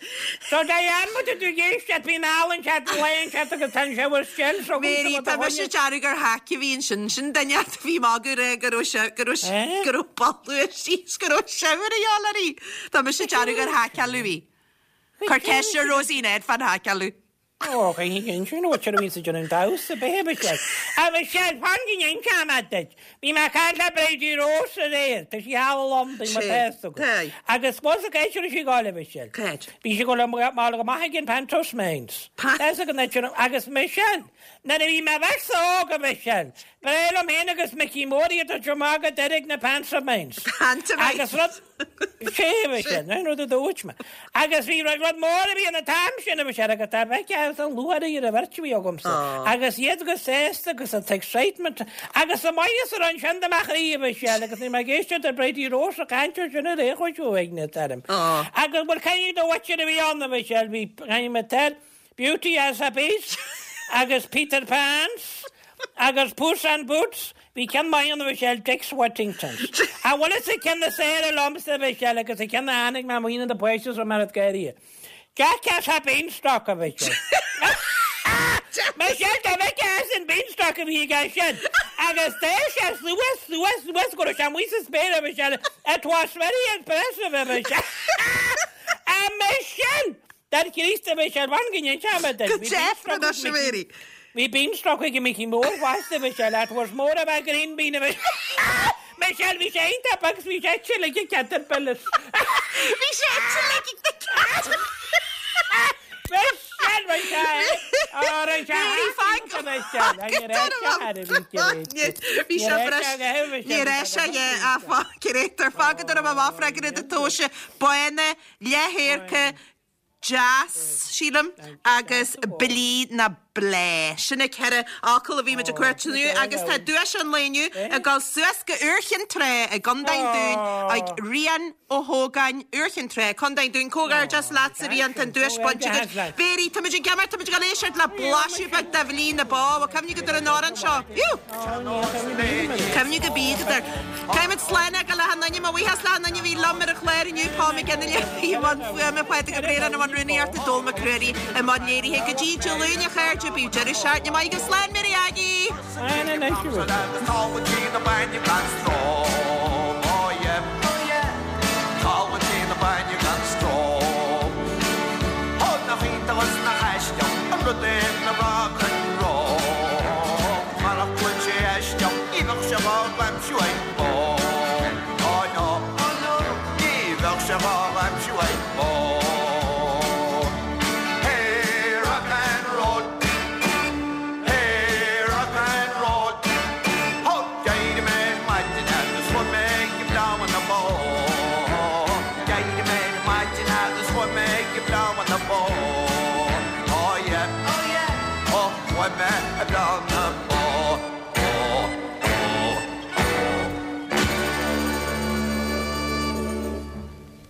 So Diane, má tá tú ag éisteacht, bíonn álainn chat, laon chat agus tá an shower gel so Mary, tá mise ag déanamh gur hack a bhí ansin, sin duine a bhí magadh rá go raibh sé, go raibh, Eh? go raibh boladh síos, go raibh shower a dhíobháil uirthi. Tá mise ag déanamh gur haiceáladh í. Cuir ceist ar Rosie Ned fán haiceáladh. Ó, chaithfidh sin nó sin a bhíonns ag déanamh damhsa, b'é Michelle. A Michelle, fan go n-inseoidh mé duit. Bhí mé ag caint le Bridie Rose aréir, tá sí thall i Londain, má tá fhios agat. Agus bhfuil fhios agat cá háit a raibh sí ag gabháil, a Michelle? Cá háit? Bhí sí ag gabháil go amach ag an Pantomimes. Tá fhios agat an áit sin, agus Michelle, nuair a bhí mé bheirtse óg, a Michelle, ba bhreá liom féin agus Micí Mór iad a tabhairt amach go Doire ag na Pantomimes. Pantomimes. Agus rud, Sé a sin, an rud a dúirt mé. Agus bhí rud mór a bhí an t-am sin a bhí sé agus tá bheith as an lúcháir ar an bheirt a bhí agamsa. Agus iad go sásta agus an t-excitement agus an maitheas a raibh ansin do mo chroí a bhí sé agus ní mé ag éisteacht le Bridie Rose ag caint ar sin ar aon chúis uaigneas orm. Agus bhuel caithfidh do mhuintir a bhí ann a bhí sé bhí caithfidh mé teir Beauty as a Beast agus Peter Pans agus Puss and Boots, bhí ceann maith ann a Mhichelle, Dick's Whittingtons. An bhfuil fhios ag ceann is fearr liomsa a Mhichelle agus an ceann a tháinig mé amuigh na na paiste so mar gáirí. Jack as a Beanstalk a Mhichelle. Michelle dá bhfeicfeá as an Beanstalk a bhí aige sin agus d'fhéach sé suas suas suas go raibh sé amuigh sa spéir a Mhichelle, it was very impressive a Mhichelle. A Michelle! Dar Críost a Mhichelle, fan go n-inseoidh mé duit. Go deimhin anois, a Mary. Bhí beanstalk ag Micí Mór fosta, a Mhichelle, it was more of a green bean a Mhichelle. Michelle, bhí sé iontach beag agus bhí sé ite like a caterpillar. Bhí sé ite like a caterpillar. Michelle, bhí sé Ó, bhí sé Mary, fág iontach, Michelle. Ní raibh sé thar a bhí Bhí sé breis. Ní raibh sé, yeah, fág fágad orm amach freagra do tomhaise bána leathdhorcha, deas, sílim, agus blí ná bláth. Sin na ceithre fhocal a bhí muid ag cuartú inniu agus tá duais an lae inniu ag dul suas go Iúr Chinn Trá i gContae an Dúin ag Rian Ó hÓgáin, Iúr Chinn Trá, Contae an Dúin. Comhghairdeas leatsa, Rian, tá an duais bainte agat. Mary, tá muid ag imeacht, tá muid ag dul éisteacht le blaiseadh beag de Bhlí na Bó. Bhfuil cuimhne agat ar an amhrán seo? Cuimhne go bídh agat air. Caithfimid slán a fhágáil le achan duine. Mo bhuíochas le achan duine a bhí liom ar an chlár inniu, Paul McGinley a bhí i mbun fuaime, Pádraig Ó Braonáin i mbun rúnaíochta, Dónall Mac Ruairí i mbun léirithe. Go dtí Dé Luain a chairde, bíodh deireadh seachtaine maith agaibh. Slán, Mary Aggie! Slán anois.